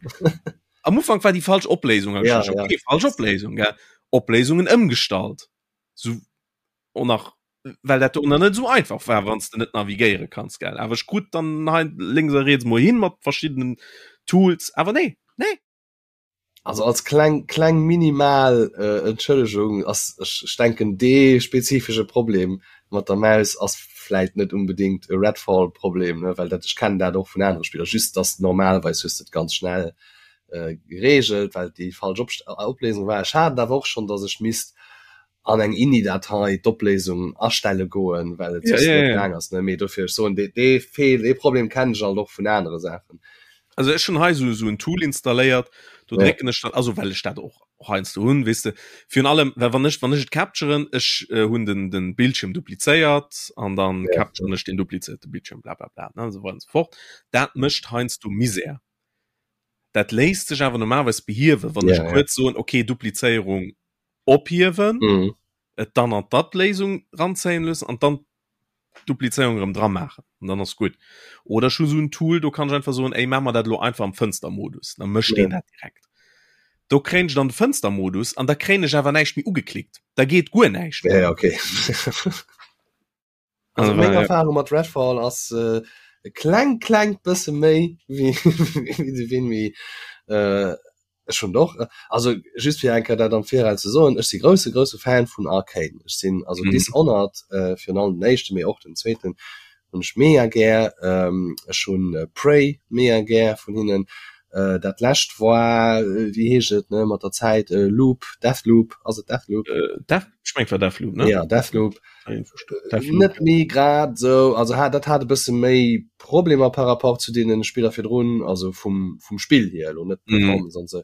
Am Ufank war déi falsch Opléisung, hab ech Ja, gedacht, ja. okay, falsch Opléisung, gell? Opléisungen ëmgestallt. Sou och nach well dat do net sou einfach war, wann s de net navigéiere kanns, gell? Awer ech krut dann hei lénks a riets mol hin mat verschiddenen Tools, awer nee, nee. Also als kleng kleng minimal äh, Entschëllegung ass ech, ech denken dee spezifesche Problem mat der Maus ass vläit net unbedingt e Redfall Problem, ne, well dat ech kennen dat och vun anere Spiller, just dass normalerweis hues de et ganz schnell äh, geregelt, well déi falsch Op Opléisung war. Ech hat et awer och schonn, dass ech misst an eng INI-Datei d'Opléisung astelle goen, well et Ja, soss ja, net ja. gaang ass, ne? Mee dofir, ech soen, dee, dee Feel, dee Problem kennen ech alt och vun anere Saachen. Also ech hunn hei esou esou en Tool installéiert, do Ja. drécken ech dann, also well ech dat och heiansdo hunn, weess de, virun allem, well wann ech, wann ech et capturen, ech äh, hunn den, den Bildschirm duplizéiert an dann Ja. capturen ech den duplizéierte Bildschirm, bla bla bla, ne, esou weider an esou fort. Dat mécht heiansdo Misär. Dat léisst sech awer normalerweis behiewen, wann Ja, ech ja. kuerz soen, okay, Duplizéierung ophiewen, Mhm. et dann an d'App-Léisung ranzéien loossen an dann d'Duplizéierung erëm dra maachen an dann ass gutt. Oder ech hu sou en Tool, do kann ech einfach soen, ey, maach mer dat elo einfach am Fënstermodus, da mécht Ja. deen dat direkt. Do kréien ech dann de Fënstermodus an da kréien ech awer näischt méi ugeklickt, da geet guer näischt Ja, méi. ja, okay. Also Also, meng ja. Erfahrung mat Redfall ass äh, e kleng klengt bësse méi wéi wéi de Vinmi. Äh, ech hunn och äh, also just fir eng Kéier dat am Viraus ze soen, ech si grousse grousse Fan vun Arkane. Ech sinn also Mhm. Dishonored äh, virun allem den éischten, mee och den zweeten hunn ech mega gär. Ähm, ech hunn äh, Prey mega gär vun hinnen. Äh, dat lescht war äh, wéi heescht et ne mat der Zäit äh, Loop, Deathloop, ass et Deathloop? Äh, Death, ech meng et war Deathloop, ne? Ja, Deathloop. Net méi grad sou, also hat dat hat e bësse méi Problemer par rapport zu deenen Spiller virdrun, also vum vum Spill hier elo, net d'Performance an sou,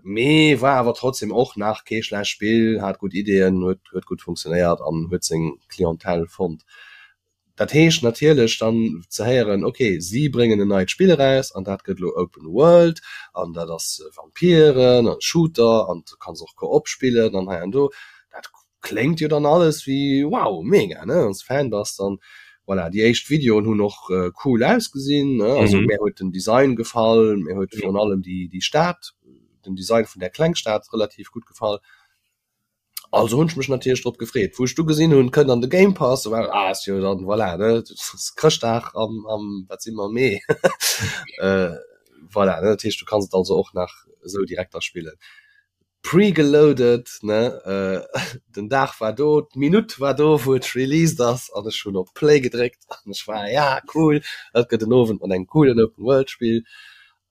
mee war awer trotzdem och nach kee schlecht Spill, hat gutt Ideeën, huet huet gutt funktionéiert an huet seng Clientèle fonnt. Dat heescht natierlech dann ze héieren, ok, si bréngen en neit Spill eraus an dat gëtt elo Open World an dat ass Vampiren an Shooter an du kanns och Koop spillen an hei an do, dat Kléngt jo dann alles wéi wow, mega ne, wanns de Fan bass dann. Voilà, déi éischt Videoen hunn och cool ausgesinn ne, also mär huet den Design gefall, mär huet virun allem déi déi Stad, den Design vun där Klengstad relativ gutt gefall. Also hunn ech mech natierlech drop gefreet. Wou ech du gesinn hunn, kënnt an de Game Pass, war ah ass jo dann voilà ne, Chrëschtdag am am wat si mer Mee voilà ne, dat heescht du kanns et also och nach esou direkt da spillen. Pregeloaded ne, den Dag war do, d'Minutt war do wou et released ass an ech hunn op Play gedréckt an ech war ja cool, dat gëtt en Owend mat engem coolen Open World Spill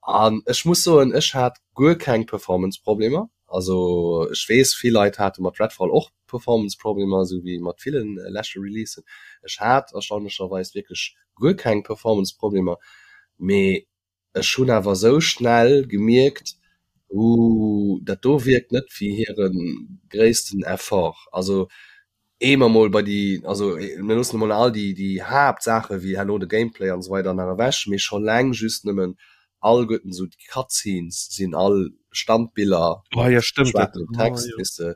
an ech muss soen ech hat guer keng Performance Problemer, also ech weess vill Leit hate mat Redfall och Performance Problemer esou wéi mat ville leschte Releasen, ech hat erstaunlecherweis wierklech guer keng Performance Problemer, mee Ech hunn awer esou schnell gemierkt, Ooh, dat do wierkt net wéi hire gréissten Effort. Also ehe mer mol bei déi, also mir loossen emol all déi déi Haaptsaache wéi herno de Gameplay an esou weider nach ewech, mee scho laang just nëmmen alleguerten esou déi Cutscenes sinn all Standbiller Oh mat ja, stëmmt dat. schwaarzem Oh Text, jo. weess de.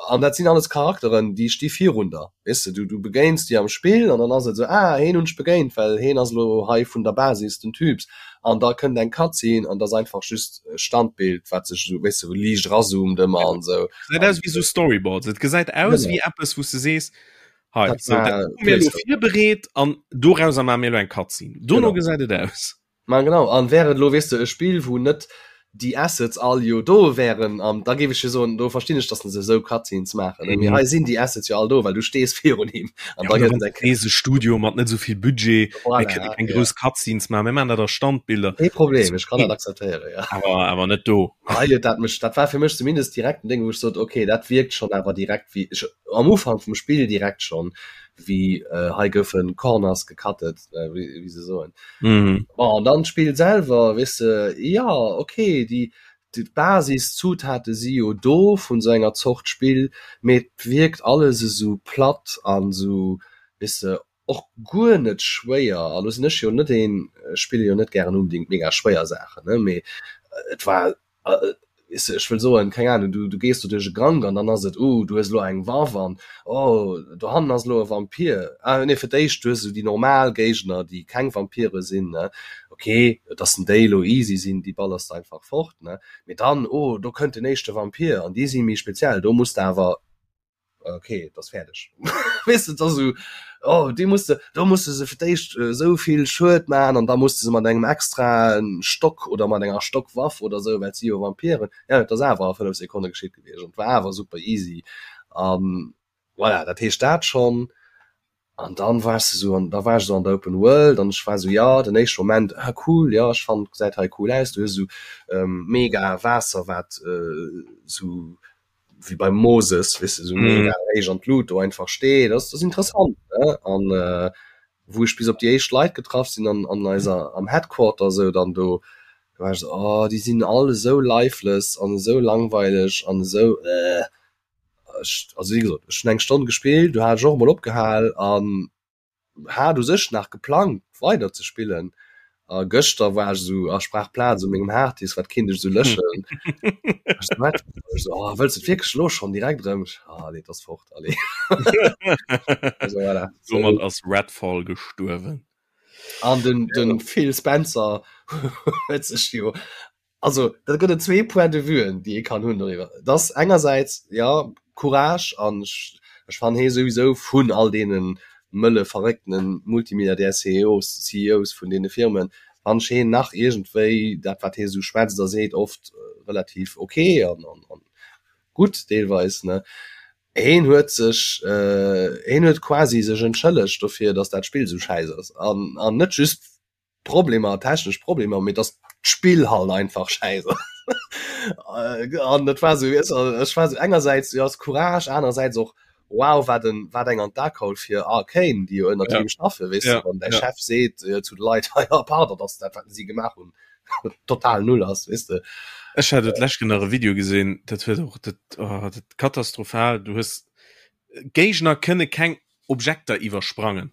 An dat sinn alles Charakteren, déi sti virun der, weess de, du du begéins déi am Spill an dann ass et esou, ah heen hunn ech begéint, well heen ass elo hei vun der Basis den Typs. An da kënnt eng Cutscene an dat ass einfach just e Standbild, wat sech esou, weess de, liicht erazoomt ëmmer an esou. Gesäit aus wéi esou Storyboards. Et gesäit aus Genau. wéi eppes, wou s de sees, hei, Dat sou, dat war hu mir elo Playstyle. virbereet an dorauser maache mir elo eng Cutscene. Dono Genau. gesäit et aus. Ma genau, an wär et elo, weess de, e Spill, wou net déi Assets all jo do wären, an da géif ech jo soen, do verstinn ech, dass se esou Cutscenes maachen, ne? Mee Mhm. hei sinn déi Assets jo all do, well du stees virun him an Ja, da oder gëtt wann et eng du sees, e Studio mat net esou vill Budget, mir Voilà, kënne keng ja. grouss Cutscenes maachen, mir maachen dat a Standbilder. Kee Problem, Ass ech kann dat okay, akzeptéieren, ja. awer, awer net do. Hei huet dat mech, dat war fir mech zumindest direkt en Déng, wou ech sot, okay, dat wierkt schonn awer direkt wéi, ech, am Ufank vum Spill direkt schonn, wéi hei goufe Corners gecuttet, wéi, wéi se soen. Mhm. Bon, an dann d'Spill selwer, weess de, jo, okay, déi, d'Basiszutaten si jo do vun esou enger Zort Spill, mee et wierkt alles esou platt an esou, weess de, Och guer net schwéier, a lo sinn ech jo net een, ech spille jo net gären unbedingt mega schwéier Saachen, ne, mee et war, weess de, ech wëll soen, keng Ahnung, du, du gees do duerch e Gank an dann ass et, uh, du hues elo eng Waff an, oh, dohannen ass elo e Vampir, ah nee, fir d'éischt du hues esou déi normal Géigner, déi keng Vampire sinn, ne, ok, dass en déi elo easy sinn, déi ballers de einfach fort, ne, mee dann, oh, do kënnt den éischte Vampir an déi si méi speziell, do muss de awer okay et ass fäerdeg weess de et ass esou oh déi muss de do muss de se fir d'éischt esou vill Schued man an da muss de se mat engem extraen Stock oder mat enger Stockwaff oder esou well et si jo Vampiren ja et ass awer a 5 Sekonne geschitt gewiescht an et war awer super easy an voilà dat heescht dat schonn An dann wars de sou an da war ech sou an der Open World an ech war sou jo den éischte Moment ah cool jo ech fannen gesäit hei cool aus. Du hues sou mega Waasser wat sou wéi beim Moses weess de sou mega héich an d'Lut do einfach steet ass ass interessant ne an wou ech bis op déi éischt Leit getraff sinn an an eiser am Headquarter sou dann do do war ech sou oh déi sinn all esou lifeless an esou langweileg an esou äh. Ech, also wéi gesot, ech hunn eng Stonn gespillt, du hat ech och emol opgehal an hat u sech nach geplangt weider ze spillen. A gëschter war ech esou, ach ech brauch Plaz u mengem Harddisk, wat kéint ech esou löschen? Ech sou, wat? Ech sou, oh, wëlls de et wierklech elo schonn direkt erëm? Ech, ah nee, et ass fort, allez. Also voilà. Domat ass Redfall gestuerwen. An den, den Phil Spencer huet sech jo Also da gëtt et zwee Point de vuen, déi ee kann hunn doriwwer. Et ass engersäits, jo, Courage an ech, ech fannen hee souwisou vun all deene mëlle verrécktene Multimilliardär-CEOs, CEOs vun deene Firmen, fannen ech heen nach iergendwéi dat wat hee esou schwätzt a seet oft relativ ok an, an, an gutt deelweis, ne. Heen huet sech, heen huet quasi sech entschëllegt dofir, datt dat Spill esou schäiss ass an, an net just Problemer, technesch Problemer, mee dass d'Spill halt einfach schäiss ass. An dat war sou, weess de, ech war sou engersäits, jo ass Courage, anerersäits och wow, wat en, wat eng an d'A geholl fir Arkane, déi jo ënnert him schaffen, weess de, wann däi Chef seet zu de Leit, hei, jo, pardon, dass dat wat si gemaach hunn total null ass, weess de. Ech hat et d'lescht nach e Video gesinn, dat huet och dat, oh, dat katastrophal, du hues Géigner kënne keng Objekter iwwersprangen.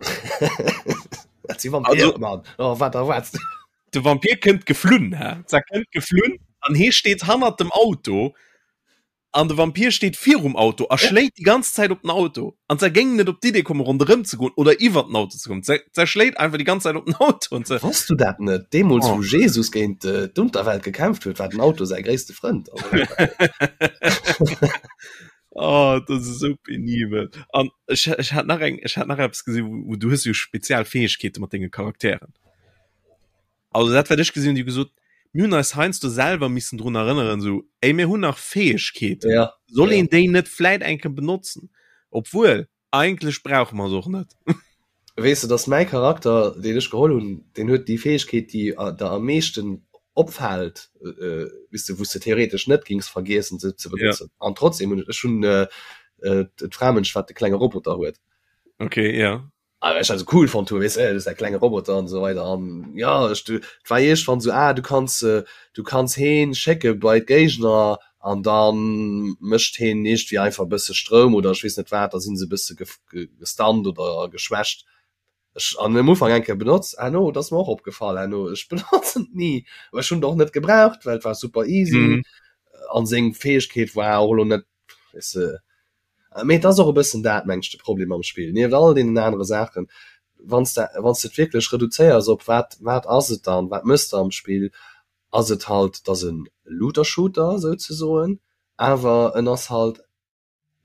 Dat si Vampire, Mann. Oh, wat erwaarts du? De Vampir kënnt geflunn, hä? Se kënnt geflunn an hee steet hannert dem Auto an de Vampir steet virum Auto a schléit déi ganz Zäit op den Auto. An se géing net op d'Idee kommen, ronderëm ze goen oder iwwer den Auto ze kommen. Se, se schléit einfach déi ganz Zäit op den Auto an se. Wosst du dat net? Deemools, wou Jesus géint d'Unterwelt gekämpft huet, war den Auto säi gréisste Frënd. Oh, dat ass esou penibel. An ech, ech hat nach eng, ech hat nach eppes gesinn, wou, wou du hues jo spezial Fäegkeete mat denge Charakteren. Also dat wat ech gesinn hunn, déi hu gesot, mir hunn eis heiansdo selwer missen drun erënneren, esou, ey, mir hunn nach Fäegkeeten. Ja. Soll een déi net vläit eng Kéier benotzen? Obwuel, Eigentlech brauche mer se och net. Weess de, dass mäi Charakter, deen ech geholl hunn, deen huet déi Fäegkeet, déi der am meeschten opfält, weess de, wou s de theoretesch net géings vergiessen, se ze benotzen. An trotzdem hunn ech, ech hunn d'Framënsch, wat de klenge Roboter huet. Okay, ja. Ah, well ech dat esou cool fonnt hunn, weess de, dat ass däi klenge Roboter an esou weider. An jo, ech, et war iergendwann esou, ah, du kanns, du kanns heen schécke bei d'Géigner an dann mécht heen iergendwéi einfach e bësse Stroum oder ech weess net wat, da sinn se e bësse gestunt oder geschwächt. Ech an am Ufank eng Kéier benotzt, herno, et ass mer och opgefall herno, ech benotzen et ni, awer ech hunn et och net gebraucht, well et war super easy an seng Fäegkeet war och elo net, weess de, mee et ass och e bëssen dat, meng ech, de Problem am Spill, nieft all deenen anere Saachen, wann s de, wann s de et wierklech reduzéiers op wat, wat ass et dann, wat méchs de am Spill, ass et halt, et ass e Looter-Shooter souzesoen, awer en ass halt,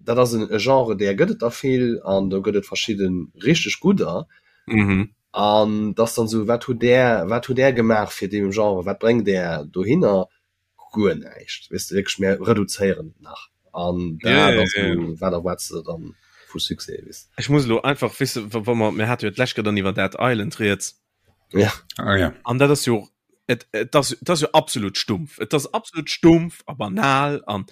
dat ass e Genre, där gëtt et der vill an do gëtt et verschidde richteg gudder. An et ass dann esou, wat hutt där, wat hutt där gemaach fir dee Genre, wat bréngt där dohinner? Guer näischt, weess de, wierklech, mir reduzéieren et nach an dat ass esou, wat erwaarts de dann vu Succès, weess de. Ech muss elo einfach, weess de, wa mer, mir hate jo d'lescht Kéier dann iwwer Dead Island rieds, Ja. Ah, ja. An dat ass jo et, et ass, et ass jo absolut stumpf. Et ass absolut stumpf a banal an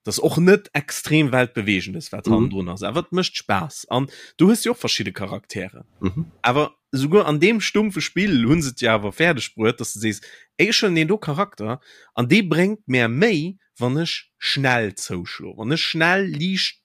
das och net extrem weltbewegendes wat mhm. drun ass. Awer et mécht Spaass an du hues jo och verschidde Charaktere. Mhm. Awer souguer an deem stumpfe Spill hunn se et jo awer fäerdeg bruet, dass du sees, ey, ech huelen deen do Charakter an dee bréngt mär méi, wann ech schnell zouschlo, wann ech schnell liicht.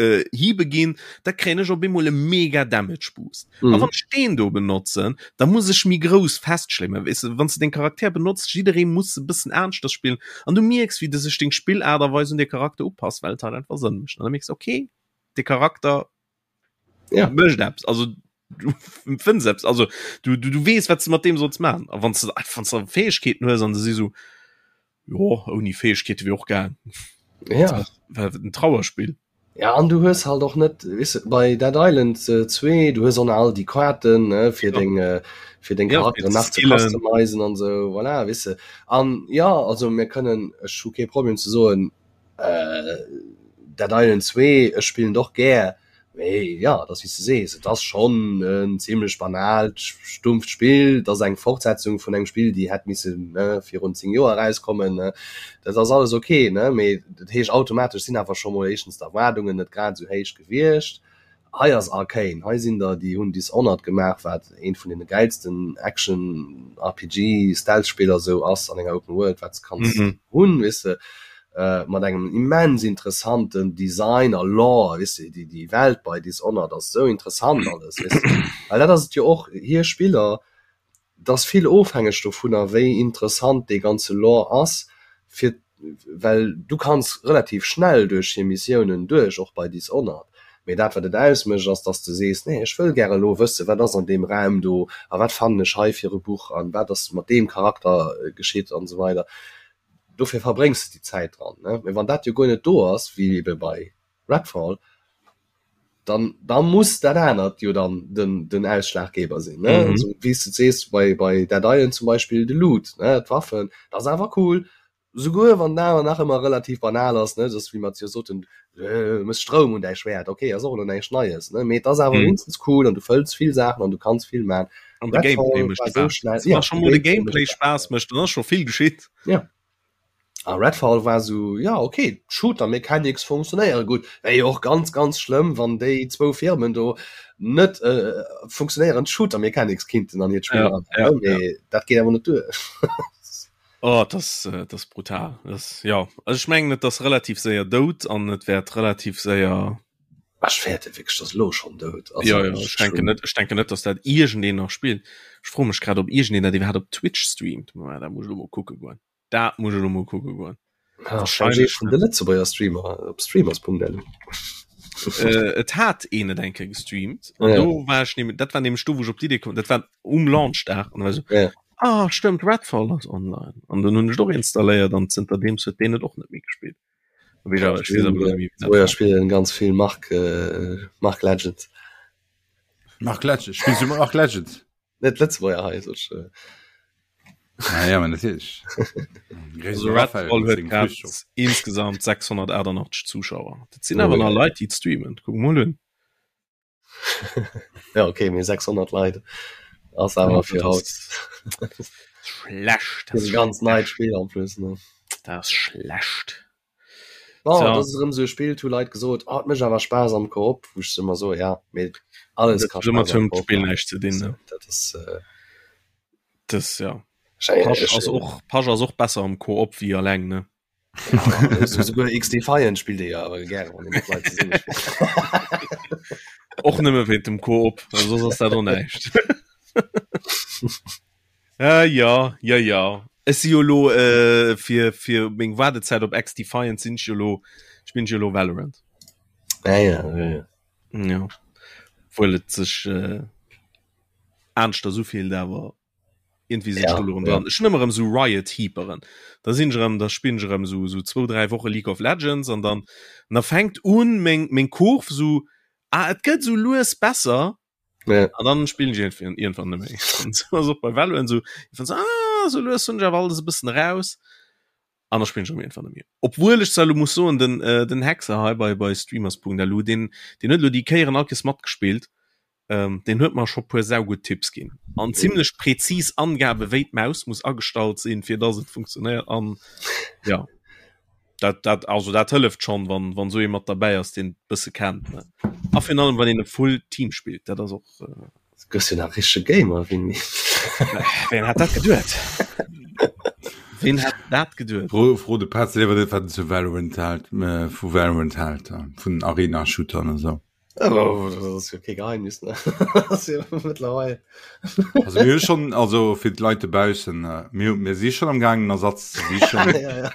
äh, hiebe ginn, da kréien ech op eemol e mega Damage Boost. Mm. A wann ech deen do benotzen, da muss ech méi grouss festschlémmen. Weess de, wann s de deng Charakter benotzt, jidderee muss e bëssen aneschters spillen an du mierks, wéi de sech deng Spillaart a Weis un de Charakter upass, well et halt einfach Sënn mécht. An da mierks de, okay, de Charakter ja. mécht eppes. Also du fënns eppes. Also du, du, du weess, wat s de mat deem solls maachen. A wann s de wann s de Fäegkeeten hues an se si sou, Jo, ouni Fäegkeete wier och gaang. Ja. War en Trauerspill. Ja, an du hues halt och net, weess de, bei Dead Island 2, du hues och nach all déi Kaarten, ne, fir deng, fir deng Ja, fir Charakteren ze nach ze skillen. customizen an esou, voilà, weess de. An ja, also mir kënnen, ech hu kee Problem ze soen, Dead Island 2, ech spillen et och gär, Mee jo, et ass wéi s de sees, et ass schonn en zimlech banaalt, stumpft Spill. Et ass eng Fortsetzung vun engem Spill, déi hätt missen virun 10 Joer erauskommen. Dat ass alles ok, mee dat heescht automatesch sinn awer scho mol éischtens d'Erwaardungen net grad esou héich gewiescht. Hei ass Arkane, hei sinn der, déi hunn Dishonored gemaach, wat eent vun deene gäilsten Action-RPG-Stealth-Spiller esou ass an enger Open World, wat s de kanns hunn, weess de. mat engem immens interessanten Design a Lore, weess de, déi déi Welt bei Dishonored ass esou interessant alles, weess de, well dat ass et jo och, hir Spiller, et ass vill ofhängeg dovunner wéi interessant dee ganze Lore ass, fir well du kanns relativ schnell duerch hir Missiounen duerch, och bei Dishonored, mee dat wat et ausmécht ass, dass de sees, nee ech wëll gäre elo wësse wat ass an deem Raum do a wat fannen ech hei fir e Buch an wat ass mat deem Charakter geschitt an esou weider. Dofir verbréngs de déi Zäit dran. Ne? Mee wann dat jo guer net do ass, wéi ebe bei Redfall, dann, da muss dat anert jo dann den, den Ausschlaggeber sinn. Ne? Mhm. Also, wéi s de sees, bei, bei Dead Island zum Beispill de Loot, ne? d'Waffen, dat ass awer cool. Souguer wann den awer nach ëmmer relativ banal ass, ne? Dat ass wéi mer jo soten, äh, mëss Stroum un däi Schwäert, okay, ass och elo näischt Neies, ne? Mee et ass awer mhm. wéinstens cool an du fëlls vill Saachen an du kanns vill man. An de Gameplay mécht Spaass. Schnell, ja, schon mol de Gameplay Spaass mécht, dann ass scho vill geschitt. Ja. A Redfall war sou, ja okay, d'Shooter Mechanics funktionéiere gutt. Wär jo och ganz ganz schlëmm, wann déi zwou Firmen do net äh, funktionéierend Shooter Mechanics kinnten an hiert Spill ja, ja, ja. Dat geet awer net duer. Oh, das, äh, das brutal. Das, ja. Also ich mengen, et ass relativ séier dout an et wäert relativ séier Ech fäerte wierklech, dass elo schonn dout ass. Ja, ja, ech denken net, ech denken net, dass dat iergendeen nach spillt. Ech froe mech grad, ob iergendeen dat iwwerhaapt op Twitch streamt. Ma dat muss ech elo mol kucke goen. Dat muss ech elo mol kucke goen. Ah, wahrscheinlech vun de Lëtzebuerger Streamer op streamers.lu. Äh, et hat een et eng Kéier gestreamt. An ja. do war ech nämlich, dat war nämlich do, wou ech op d'Idee komm, dat war um Launchdag. An da war ich so, ja. ah, stëmmt, Redfall ass online. An dann hunn ech et och installéiert an zënterdeems huet deen et och net méi gespillt. Ja, spielen ganz viel Mark äh, Mark Legends. Mark Legends spielst du Mark Legends? Net Lëtzebuerger hei so äh. ah, ja, natürlich. also Redfall huet grad insgesamt 688 Zuschauer. Dat sinn awer oh, nach Leit, déi streamen. Kuck mol un. ja okay mir 600 Leit ass awer fir haut schlecht das ganz neit Spiel en plus ne das ist schlecht oh, so. das ist so Spiel hu Leit gesot oh, mech awer Spaß am Koop wo ich immer so ja mit alles kann Spiel näischt ze dinn ne dat ist äh, das ja Pasch ass och Pasch ass och besser am Koop wéi alleng ne Souguer XDefiant spillt ee jo awer gären, wann ee mat Leit zesumme spillt. Och nëmme wéint dem Koop, well soss ass dat och näischt. Äh, ja, ja, ja. Ech si jo lo äh, fir, fir meng Waardezäit op XDefiant sinn ech jo lo, spillen ech jo lo Valorant. Ah, ja, ja, ja. Ja. Obwuel et sech äh, aneschters ufillt, awer Irgendwie sinn ech do lo erëm dran. Ech hunn ëmmer erëm esou Riot Heaperen. Da sinn ech erëm, da spillen ech erëm esou esou zwou, dräi Woche League of Legends an dann an da fänkt un meng meng Kurv esou, ah et gëtt esou lues besser. Ja. An dann spillen ech iergendwéi iergendwann net méi. An esou ass och bei Valorant esou, iergendwann esou, ah esou lues hunn ech awer alles e bëssen eraus. An da spillen ech erëm iergendwann net méi. Obwuel ech zwar elo muss soen, den den Hexer hei bei bei streamers.lu, deen deen huet elo déi Kéieren all Kéiers matgespillt. Ähm, deen huet mer scho puer saugutt Tipps ginn an zimmlech präzis Angabe wéi d'Maus muss agestallt sinn, fir dass et funktionéiert an ja dat dat also dat hëlleft schon wann wann sou ee mat derbäi ass deen bësse kennt ne a virun allem wann een e full Team spillt dat ass och äh, Gëss jo nach richtege Gamer Winnie. Ween hat dat geduet? Ween hätt dat geduet? Fro, fro de Petz liewer net, wat en zu Valorant hält, äh, vu Valorant hält, äh, vun Arena-Shootern an esou. Oh, das ass jo kee Geheimnis, ne? Das ass jo mëttlerweil. Also mir hu schon, also fir d'Leit dobaussen, äh, mir, mir si schon am gaangen Ersatz ze sichen. ja, ja.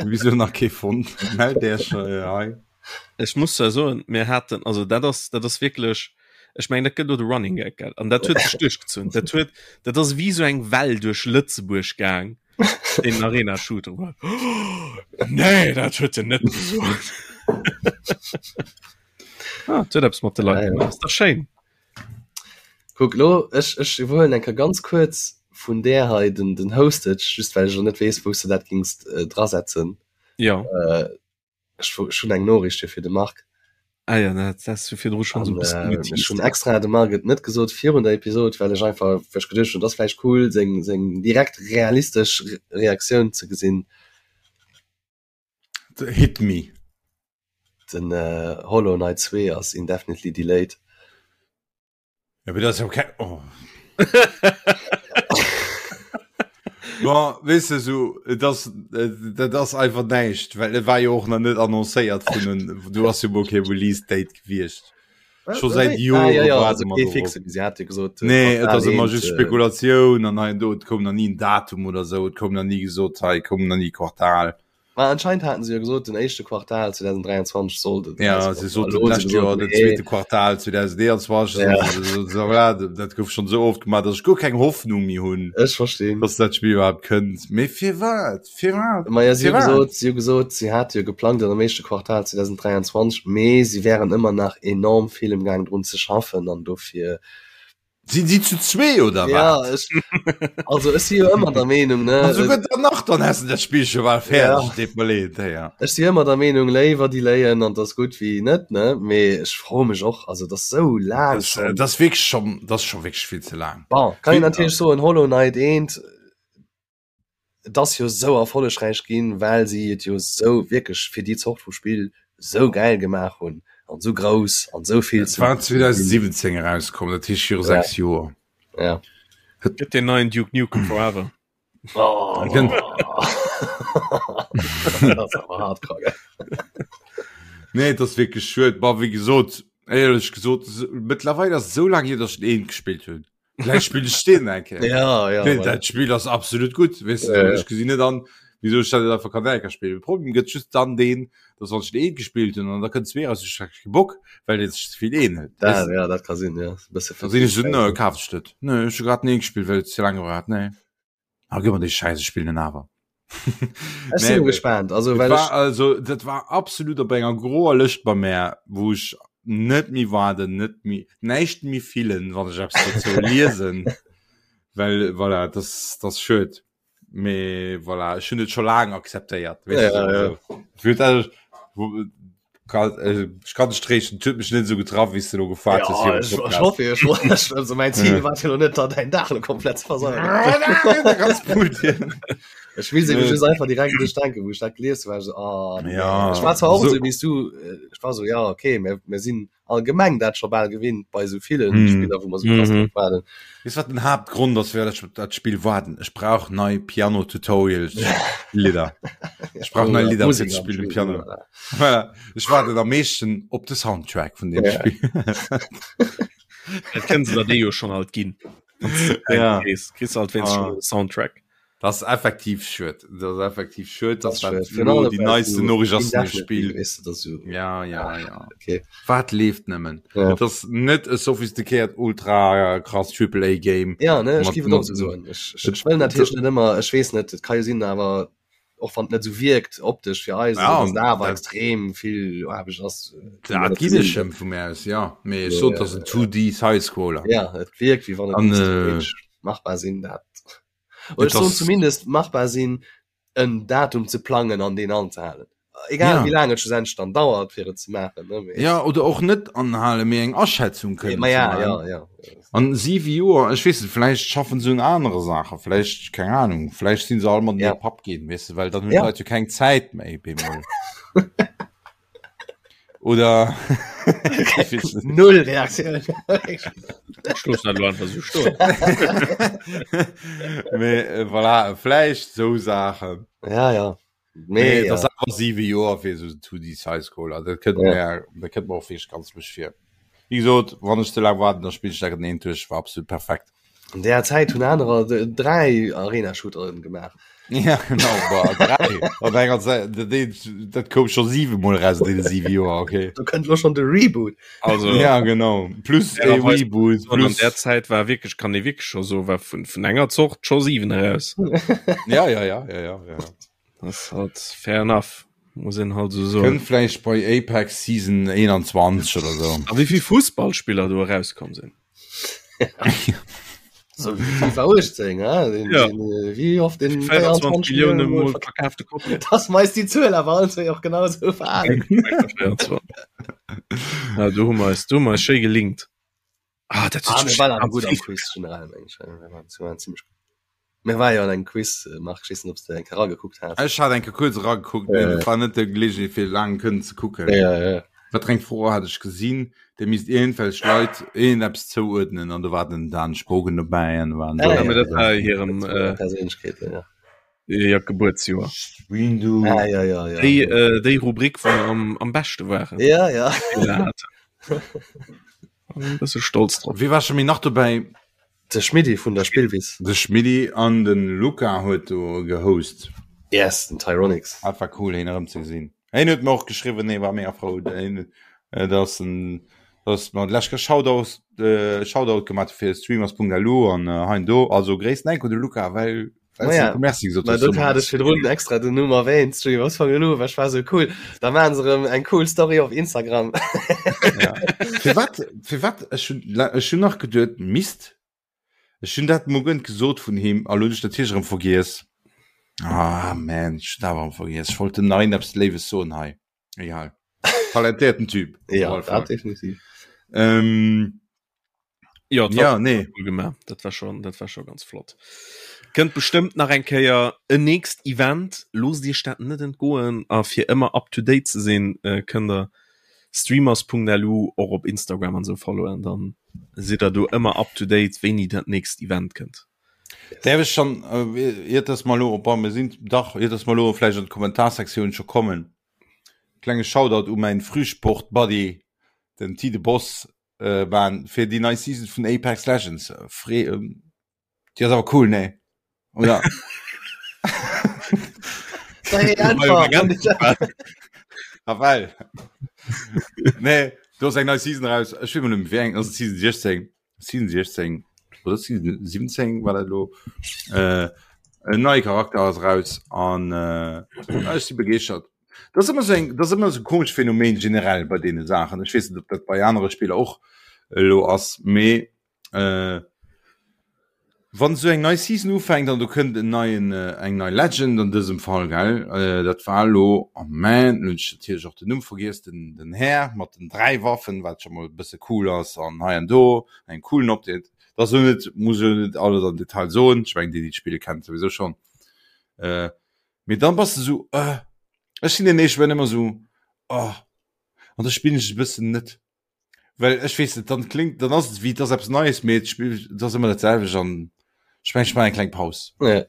Wieso nach kee fonnt? Mellt Iech äh, hei. Ech muss zwar soen, mir haten, also dat ass, dat ass wierklech, ech mengen, dat gëtt elo de Running Gag, gell? An dat huet sech duerchgezunn. Dat huet, dat ass wéi esou eng Well duerch Lëtzebuerg gaang, deen Arena Shooter war. Nee, dat huet en net gesot. Ah, huet eppes mat de Leit Ja, ja. gemaach. Ass dach schéin. Kuck lo, ech, ech iwwerhuelen eng Kéier ganz kuerz vun där hei den, den Hostage, just well ech elo net weess, wou s de dat gings äh, drasetzen. Ja. Äh, ech, ech hunn eng Noriicht hier fir de Marc. Ah ja, dat has du virdru schonn esou An e bëssen äh, ech geteased. hunn extra dem Marc et net gesot virun der Episod, well ech einfach, well ech geduecht hunn, et ass vläicht cool, seng, seng direkt realistesch Reaktioun ze gesinn. Hit me. Den äh, Hollow Knight 2 ass indefinitely delayed. Ja, aber das ist okay. Oh. Bon, weißt du, so, das, äh, das ist einfach näischt, well et war jo och nach net annoncéiert vun den, du hast jo mol kee Release Date gewiescht. Scho säit Jore ah, ja, ja, waarde also mer kee dorop. fixe, si hat jo gesot, äh, Nee, et Quartal ass ëmmer eent, just äh, Spekulatioun an hei an do, et koum nach ni en Datum oder sou, et koum nach ni gesot, hei koum nach ni Quartal. Ma anscheinend haten se jo gesot, den éischte Quartal 2023 sollt et Ja, erauskommen. se soten Elo hu se d'lescht Joer gesot, den nee. zweete Quartal 2021, Ja. so, so, voilà, dat gouf schonn sou oft gemaach, datt ech guer keng Hoffnung méi hunn, Ech verstinn. datt dat Spill iwwerhaapt kënnt. Mee firwat? Firwat? Ma ja, si hu Firwat? gesot, si hu gesot, si hate jo geplangt an am éischte Quartal 2023, mee si wären ëmmer nach enorm vill emgaang drun ze schaffen an dofir Sinn si zu zwee oder Ja, wat? ech, also ech si jo ëmmer der Meenung, ne, An souguer dann nach, dann häss de dat Spill scho bal fäerdeg. Ja. Deet mer leed, ja. Ech si ëmmer der Meenung, léiwer delayen an 't ass gutt wéi net, ne, mee ech froe mech och, also et ass sou laang Das, äh, schonn. das wierklech schon, das ass scho wierklech vill ze laang. Bon, kann een Vill, natierlech soen, Hollow Knight eent, Et ass jo sou erfollegräich ginn, well si et jo sou wierklech fir déi Zort vu Spill sou gäil gemaach hunn an sou grouss an sou vill Et war 2017 erauskomm, dat heescht viru 6 Joer. Ja. Gëtt deen neien Duke Nukem Forever. Oh. Dat ass awer hardcore, gell? Nee, et ass wierklech schued. Bon, wéi gesot, éierlech gesot, mëttlerweil ass et esou laang hier, datt ech den eent gespillt hunn. Vläicht spill ech deen eng Kéier. Ja, ja, Nee, voilà. dat Spill ass absolut gutt, weess de, Ja, ja. ech gesinn net an, wieso ech dat net einfach kann eng Kéier spillen. De Problem gëtt just dann deen, dass wann ech den eent gespillt hunn an da kënnt zwee raus, ech hu kee Bock, well et sech ze vill ähnelt, Da, weess de. ja, dat ka sinn, ja. E bësse Da sinn ech esou, nö, kaf ech net. Nö, ech hu grad den eent gespillt, well et ze laang gebraucht hat, nee. Ah, gëff mer dee Schäiss, ech spillen en awer. Ech sinn Nee, gespaant, also Et well war ech also dat war absolut op enger groer Lëscht bei mär, wou ech net méi waarden, net méi näischt méi fillen, wann ech eppes dozou liesen, well voilà, das das schued. Mee voilà, ech hunn et scho laang akzeptéiert, weess Ja, de, ja. also fir dat wo kann äh, ech kann dech tréischten, et huet mech net esou getraff, wéi s de elo gefaart hues Ja, virum ech, ech Podcast. hoffe, ech, ech, also mein Ziel war jo net, da dein Dag lo komplett ze versauen. Ganz gut. Ech will se Nee. just einfach direkt duerch denken, wou ech dat gelies hu, war ech so, ah, nee. Ja, Ech war zwar och so- esou wéi s du, äh, ech war so, ja, okay, mir, mir sinn allgemeng dat scho bal gewinnt bei esou villen Hm. Spiller, wou mer sou krass Mhm. drop waarden. Weess wat den Haaptgrond ass fir dat dat Spill waarden? Ech brauch nei Piano Tutorials Lidder. Ech brauch nei Oder Lidder fir Musek ze am spillen Spill, Piano. voilà. Voilà. Ech waarden am meeschten op de Soundtrack vun deem Ja. Spill. Dat kënnen se der déi jo schonn alt ginn. Ja. Kriss kriss alt wéinst Ah. schon Soundtrack. Das ass effektiv schued. Das ass effektiv schued, dass Das dat ist schwierig. elo déi neiste Noriicht ass vun dem Indefinitely, Spill. Weißt du, das so, Ja, ja, ja. okay. Wat leeft nëmmen? Ja. Et ass net e sophistiquéiert ultra krass Triple A Game. Ja, ne, ech Mat- géif et och mat- sou soen. Ech, ech, ech wëll natierlech net ëmmer, ech weess net, et ka jo sinn, awer och wann et net sou wierkt optesch fir eis, Ja, dass da awer dat- extrem vill Aarbecht ass. äh, Dat ginn ech em vu mir aus, ja. Mee ech Ja, sot, ja, dat ass en 2D Sidescroller. Ja, et wierkt wéi wann et An, misst äh, theoretisch machbar sinn, dat. Oder Et ech soen ass- zumindest machbar sinn, en Datum ze plangen an deen anzehalen. Egal Ja. wéi laang et schlussendlech dann dauert, fir et ze maachen. Ne? Mee, Ja, oder och net anhalen, mee eng Aschätzung kënnen ma ze ja, maachen. ja, ja. An siwe Joer, ech weess net, vläicht schaffen se un anere Saachen, vläicht, keng Ahnung, vläicht sinn se all mat Ja. ja. Papp ginn, weess de, well dann hunn Ja. d'Leit jo keng Zäit méi bemol. Oder Null Reaktioun. Ech loossen dat elo einfach esou stoen. Mee äh, voilà, vläicht sou Saachen. Ja, ja. Mee Mee, et ass ja. awer siwe Joer fir esou 2D Sidescroller. Dat kënnt Ja. mir, dat kënnt mir och wierklech ganz lusch vir. Wéi gesot, wann ech ze laang waarden, da spillen ech dat genee duerch, war absolut perfekt. An där Zäit hunn anerer 3 Arena-Shooteren gemaach. Ja, genau, boah, 3. Op enger Säit, dat eent, dat koum scho 7 Mol raus an deene 7 Joer, okay. Do kënnt lo schon de Reboot. Also, Ja, genau. Plus e fairerweis Reboot, an plus. der Zäit war wierklech, kann ee wierklech scho soen, war vun, vun enger Zort scho 7 eraus. Ja, ja, ja, ja, ja, ja. Das ist halt fair enough, muss een halt so soen. Kënnt vläicht bei Apex Season 21 oder sou. A wéi vill Fussballspiller do erauskomm sinn. So wéi FIFA 18, ja? Den, Ja. den, äh, wéi oft den 24 Millioune Mol verkaaft. verkaafte Kopien. Das meist die Zuel awer all zwee och genau sou verhalen. 24. Ja, do hu mer eis, do hu mer eis schéi gelinkt. Ah, dat Ah, huet mir sech waren awer ganz gutt am vill Quiz generell, meng ech. Mir waren, mir waren ziemlech gutt. Mir war jo an engem Quiz, äh, Marc, ech weess net, ob s de eng Kéier eragekuckt has. Ech hat eng Kéier kuerz eragekuckt, mee Äh. et war net de Gelegenheet fir laang kënnen ze kucken. Ja, ja. Wat eng Fro hat ech gesinn, der misst iergendwelch Leit iergendeppes zouuerdnen an do war den Dan Spogen dobäi an waren Ah, Ja, ja, mee dat ja. war hirem Dat war äh, Perséinlechkeeten, ja. ja, Gebuertsjoer. Windu. Ah, ja, ja, ja. Déi, äh, déi Rubrik, wou mer am, am beschte waren. Ja, ja. Fehler haten. E bësse stolz drop. Wie war scho méi nach dobäi? De Schmiddi vun der Spillwiss. De Schmiddi an den Luca huet do gehost. Yes, den Tyronix. Dat war cool heen erëm ze gesinn. Heen huet mer och geschriwwen, hee war mega frou, heen, dass en, dass mer d'lescht Kéier Shoutout, Shoutout gemaat hu fir streamers.lu an hei an do. Also gréissten Enk un de Luca, well Ma ja, Merci gesot Ma do hat ech virdrun extra den Numm erwähnt, Streamers vun elo, well ech war sou cool. Da maachen se erëm eng cool Story op Instagram. Ja. Firwat, firwat, ech hunn, ech hunn nach geduet, Mist, ech hunn dat mol gënt gesot vun him, a lo hunn ech natierlech erëm vergiess. Ah, man, ech hunn awer erëm vergiess. Ech wollt dem nach iergendeppes Léiwes soen hei. Egal. Talentéierten Typ. Ja, dat definitiv. Ähm, Ja, dat ja, war nee. cool gemaach. Dat war schon, dat war schon ganz flott. Kënnt bestëmmt nach eng Kéier en nächst Event. Loosst Iech dat net entgoen a fir ëmmer up to date ze sinn, äh, kënnt der streamers.lu och op Instagram an sou followen, dann sidd der do ëmmer up to date, wéini dat nächst Event kënnt. Däerf ech schon, äh, iert dass mer elo, bon, mir sinn, dach, iert dass mer elo vläicht an d'Kommentarsektioun scho kommen, klenge Shoutout u mäin Frühsport-Buddy, den Tide Boss, äh, waren fir déi nei Season vun Apex Legends. Fre ähm, déi ass awer cool, nee? Oder? Ah, well. nee, do ass eng nei Season raus. Ech weess mol net méi, wéi eng, ass et Season 16? Season 16 oder Season 17 war dat elo. Äh, en neie Charakter ass raus an äh, ech si begeeschtert. Dat ass ëmmer sou eng, dat ass ëmmer sou e komescht Phänomen generell bei deene Saachen. Ech weess net, ob dat bei anere Spiller och elo ass, mee äh, wann esou eng nei Season ufänkt an do kënnt en neien, eng nei Legend an dësem Fall, gell, äh, dat war elo, oh man, elo hunn ech natierlech och den Numm vergiess, den, den Här mat den 3 Waffen, wat scho mol e bësse cool ass an hei an do en coolen Update. Dat ass elo net, muss elo net alles am Detail soen, ech mengen déi, déi d'Spill kennen, souwisou schonn. Äh, Mee dann bass de sou, äh, ech sinn deen éischt, wenn ëmmer sou, oh, an da spillen ech e bëssen net. Well ech weess net, dann klingt, dann ass et wéi et ass eppes Neies, mee et spill, et ass ëmmer dat selwecht an ech mengen, ech maachen eng kleng Paus. Ja.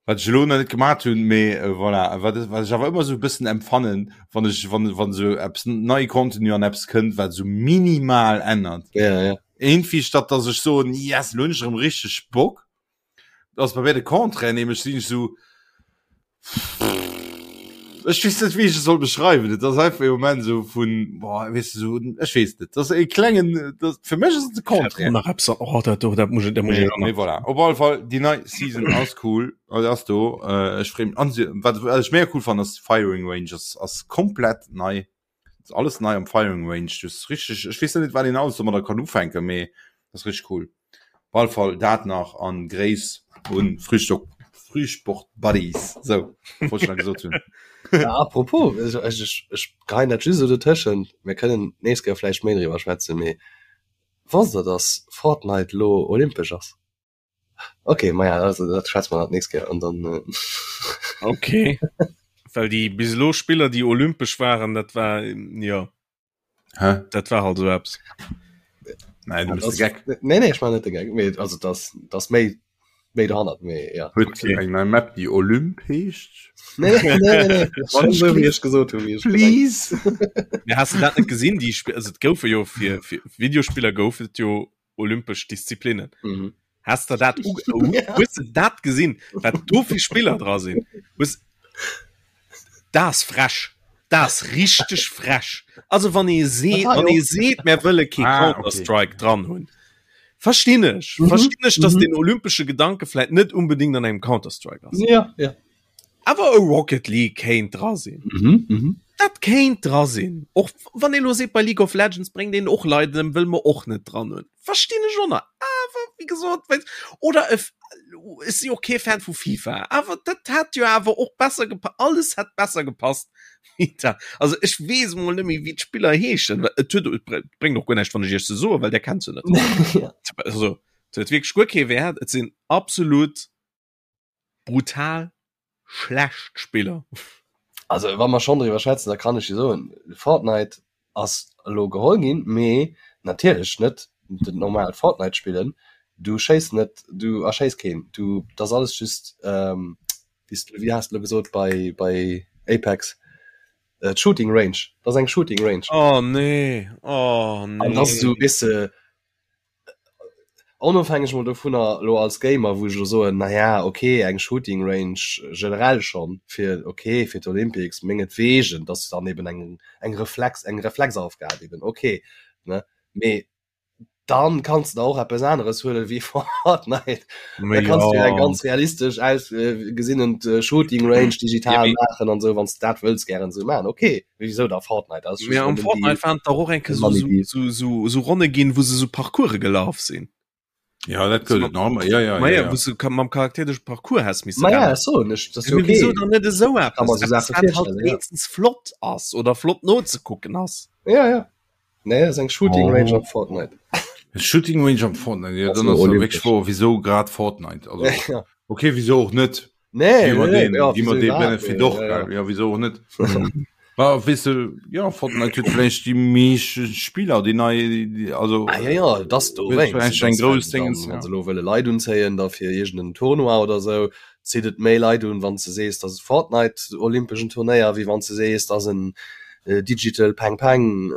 Wat ech elo nach net gemaat hunn, mee äh, voilà, wat, wat ech awer ëmmer sou e bëssen empfannen, wann ech, wann, wann sou eppes nei Contenu an eppes kënnt, wat sou minimal ännert. Ja, ja. Irgendwie statt dass ech soen, yes, elo hunn ech erëm richteg Bock, ass bei mir de Contraire, nämlech sinn ech sou ech weess net wéi ech et soll beschreiwen. Et ass einfach e Moment sou vun boah, weess de sou ech weess net. Dat ass e klengen dat fir mech ass et de Contraire. Nach eppes oh, dat do dat muss ich, dat muss ich Mee voilà. Op alle Fall déi nei Season ass cool, also ass do. Äh, ech freem an se wat wat ech mega cool fannen ass Firing Range ass ass komplett nei. Ass alles nei am Firing Range. Du ass richteg ech weess net wat een alles domadder kann ufänken, mee ass richteg cool. Op alle Fall dat nach an Gréiss un Frühstock Frühsport Buddies. Sou wollt ech nach gesot hunn. Ja, apropos, ech, ech, ech, ech geheien dat just esou dotëschent, mir kënnen d'nächst Kéier vläicht méi driwwer schwätzen, mee wosst der, dass Fortnite lo olympesch ass? Ok, maja, also dat schwätze mer dann d'nächst Kéier an dann. Äh Ok. Well déi bis elo Spiller, déi olympesch waren, dat war, jo. Hä? Dat war halt esou eppes. Nein, du bist de Geck. Nee, nee, ech man net de Geck. Mee, also das, das méi méi dohannert mee ja. Huet okay. eng nei Map déi Olymp heescht? Nee, nee, nee, nee. Schon so, wéi ech gesot hunn, wéi ech Please. Ja, hast du dat net gesinn? Déi Sp also, et goufe jo fir, fir Videospiller gouf et jo olympesch Disziplinnen. Mhm. Hast du dat hues du dat gesinn, wat do fir Spiller dra sinn? Hues das frech. Das richteg frech. Also wann ee seet, wann ee seet, mär wëlle kee Ah, okay. Counter-Strike dran hunn. Verstinn ech. Mhm. Verstinn ech, dass Mhm. den olympesche Gedanke vläit net unbedingt an engem Counter-Strike ass. Ja, ja. Awer e Rocket League kéint dra sinn. Mhm, mhm. Dat kéint dra sinn. Och wann ee lo seet, bei League of Legends bréngt een och Leit ëm, wëll mer och net dran hunn. Verstinn ech och nach. Awer wéi gesot, wéi oder e ech si och kee Fan vu FIFA, awer dat hätt jo awer och besser gepa alles hätt besser gepasst wéi dat. Also ech weess emol net méi wéi d'Spiller heeschen, well et huet et bréngt och guer näischt wann ech iech se soen, well där kennt se net. Ja. Also et huet wierklech guer kee Wäert. Et sinn absolut brutal schlecht Spiller. Also wa mer schonn driwwer schwätzen, da kann ech jo soen, Fortnite ass elo geholl ginn, mee natierlech net den normalt Fortnite spillen. Du schéiss net, du erschéiss keen, du dat ass alles just wéi s wéi has de elo gesot bei bei Apex, d'Shooting Range, dat ass eng Shooting Range. Oh nee, oh nee. An dat ass esou, weess de, Onofhängeg mol dovunner elo als Gamer, wou ech elo soen, na ja, ok, eng Shooting Range generell schonn fir, ok, fir d'Olympics mengetwegen, dass dann eben eng eng Reflex eng Reflexaufgab eben, ok, ne, mee dann kanns de der och eppes aneres huelen wéi Fortnite. Da kanns du jo eng ganz realistesch ausgesinnend Shooting Range digital maachen an esou, wann s de dat wëlls gären esou maachen, ok. Wieso da Fortnite ass Mee am Fortnite waren et dach och eng Kéier sou, sou, sou, sou, sou Ronne ginn, wou se sou Parcourse gelaf sinn. Ja, dat gëtt et nach ëmmer. Ja, ja, Ma ja, ja, ja. wou se mam Charakter duerch Parcours häss misse Ma ja, rennen. ech soen ech, dat ass jo Mee okay. wieso dann net esou Kann eppes? mer sou Eppes, Saache wat halt virstellen, ja. wéinstens flott ass oder flott nozekucken ass. Ja, ja. Nee, dat ass eng Shooting Range Oh. op Fortnite. Shooting Range am Fortnite, ja, Ass dann elo ass ja olympesch. wierklech wouer, wieso grad Fortnite? Also, Ja. okay, wieso och net? Nee, Gi mer nee, den, ja, gi mer wieso dee iwwerhaapt, Benefit nee, och, ja, ja. gell? Ja, wieso och net? Bah, weess de, ja, Fortnite huet vläicht déi meescht Spiller, déi nei, déi, also, Ah, ja, ja, das do huet wéinst, vläicht eng dass grouss wenn Dingens, dann, wann ja. se elo wëlle Leit unzéien, da fir iergend en Tournoi oder sou, zitt et méi Leit un, wann s de sees, dass et Fortnite olympeschen Turnéier, wéi wann s de sees, dass en Digital Peng Peng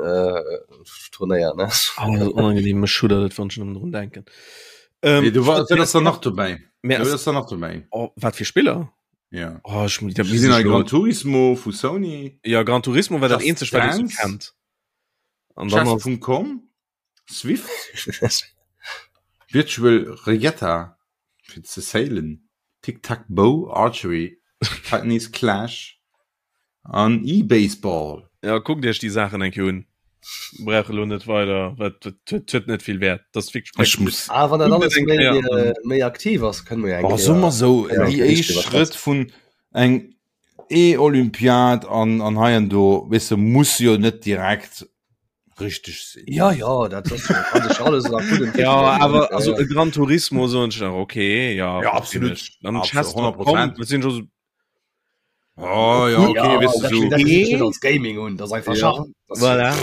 Turnéier, ne? Oh, dat ass onangenehm, mech schuddert et, wann ech nëmmen drun denken. Ähm, Nee, du war, dat ass dann nach dobäi. Mä Dat ass, ass dann nach dobäi. oh, wat fir Spiller? Ja. Oh, ich, dat Mir sinn misst hei ich lo- Gran Turismo vu Sony, Ja, Gran Turismo war dat Just eenzegt, wat ich so Dance. kennt. An dann ass, Chess.com, Swift, Virtual Regatta fir ze sailen, Tic Tac Bow, Archery, Titanies Clash, An E-Baseball. Ja, kuckt iech déi Saachen eng Kéier un. Brauch elo net weider, wat huet huet net vill Wäert. Dat ass wierklech Ech muss. Ah, wann dat Kuckt alles et eng méi, Kéier an. äh, méi aktiv ass, kënne mer jo eng Oh, soe mer Kéier, sou, kënne mer déi eng Kéier éischt driwwer Schrëtt schwätzen. vun eng E-Olympiad an, an hei an do, weess de, muss jo net direkt richteg sinn. Ja, ja, dat ass jo, kann sech alles nach gutt Ja, entwéckelen. awer Ja, also ja. e Gran Turismo soen ech nach, okay, ja, Ja, verstinn absolut. ech. Dann Absolut, Chess.com, 100%. dat sinn scho so Oh, ja, Cool. okay, Ja, weißt du, dat, so. dat gesinn ech net als Gaming un, dat ass einfach Ja. Schach. Das, Voilà.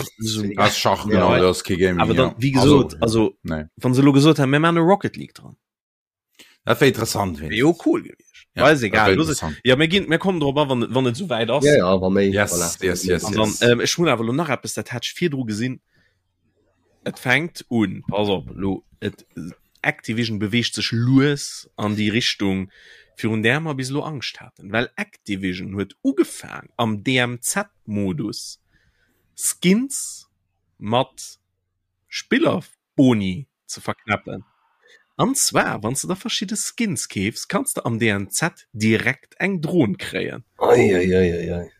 Das ist Schach, genau, Ja. das ist kein Gaming. Awer dann, ja. wéi gesot, also, nee. wann se elo gesot hätten, mir maachen e Rocket League dran, Dat wär interessant, wär jo cool gewiescht. Ja, Ja, ist dat egal. wär Los, interessant. ja, mir ginn, mir kommen drop an, wann, wann et souwäit ass. Ja, ja, wa méi. Yes, voilà. yes, yes, An yes. dann, ähm, ech hunn awer elo nach eppes, dat hat ech virdru gesinn. Et fänkt un, pass op, lo, et, Activision beweegt sech lues an déi Richtung, virun där mer bis elo Angscht haten, well Activision huet ugefaang am DMZ-Modus Skins mat Spillerboni ze verknäppen. An zwar wann s de der verschidde Skins keefs, kanns de am DMZ direkt eng Dron kréien. Ei, ei, ei, ei, ei.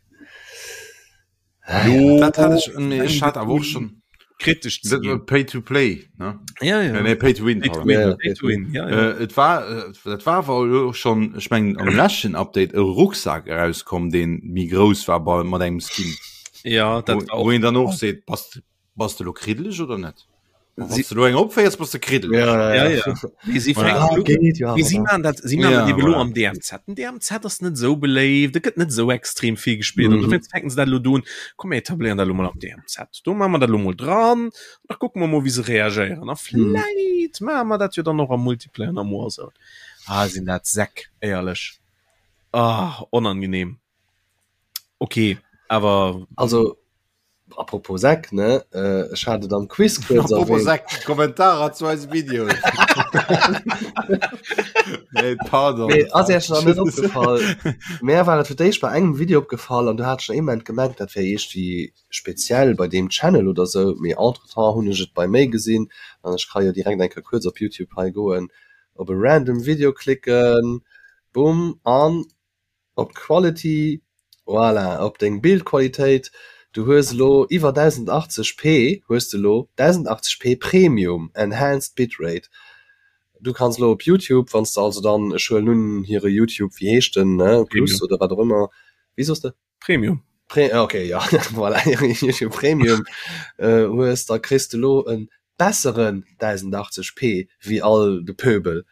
Lo Dat hat ech, nee, ech hat awer och schon kritesch ze dat ginn. war Pay to Play, ne? Ja, ja. Nee, nee, Pay to Win. Pay to pardon. win, Ja, ja, pay to win, ja, ja. Äh, et war, äh, dat war awer elo schon, ech mengen am leschten Update e Rucksak erauskomm, deen méi grouss war bei mat engem Skin. Ja, dat Wo, war wo och een dann och seet, bass, bass de lo kriddeleg oder net? Si du eng opféiers bass de kriddel. Ja, ja, ja. Nee, si fänken ah, geht, ja, si man dat si man ja, voilà. am DMZ. Den DMZ ass net sou beléift, et gëtt net sou extrem vill gespielt. Mm -hmm. fänken se dat lo doen. Komm mir etabléieren dat lo mol am DMZ. Do maache mer dat lo mol dran. Da kucke mer mol wéi se reagéieren. A mhm. vläit mm. maache mer dat jo dann och am Multiplayer an am Warzone. Ah, sinn dat Säck, éierlech. Ah, onangenehm. Okay, awer also Apropos Säck, ne? Ech hat et am Quiz kuerz Apropos erwähnt. Säck, Kommentarer zu eise Videoen. Nee, pardon. Nee, ass Iech nach net opgefall? Mär war et fir d'éischt bei engem Video opgefall an du hat ech nach ee Moment gemengt, dat wär iergendwéi speziell bei deem Channel oder sou, mee entretemps hunn ech et bei méi gesinn an ech ka jo direkt eng Kéier kuerz op Youtube hei goen, op e random Video klicken, bumm, an Op d'Quality, voilà, op deng Bildqualitéit, du hues elo iwwer 1080 p hues de elo 1080 p Premium Enhanced Bitrate. Du kanns elo op Youtube, wann s de also dann, ech huelen un hire Youtube, wéi heescht den, ne, Plus oder wat och ëmmer, wéi soss de? Premium. Pre, ok, jo, voilà, hire Youtube Premium hues, da kriss de elo e besseren 1080 p wéi all de Pöbel.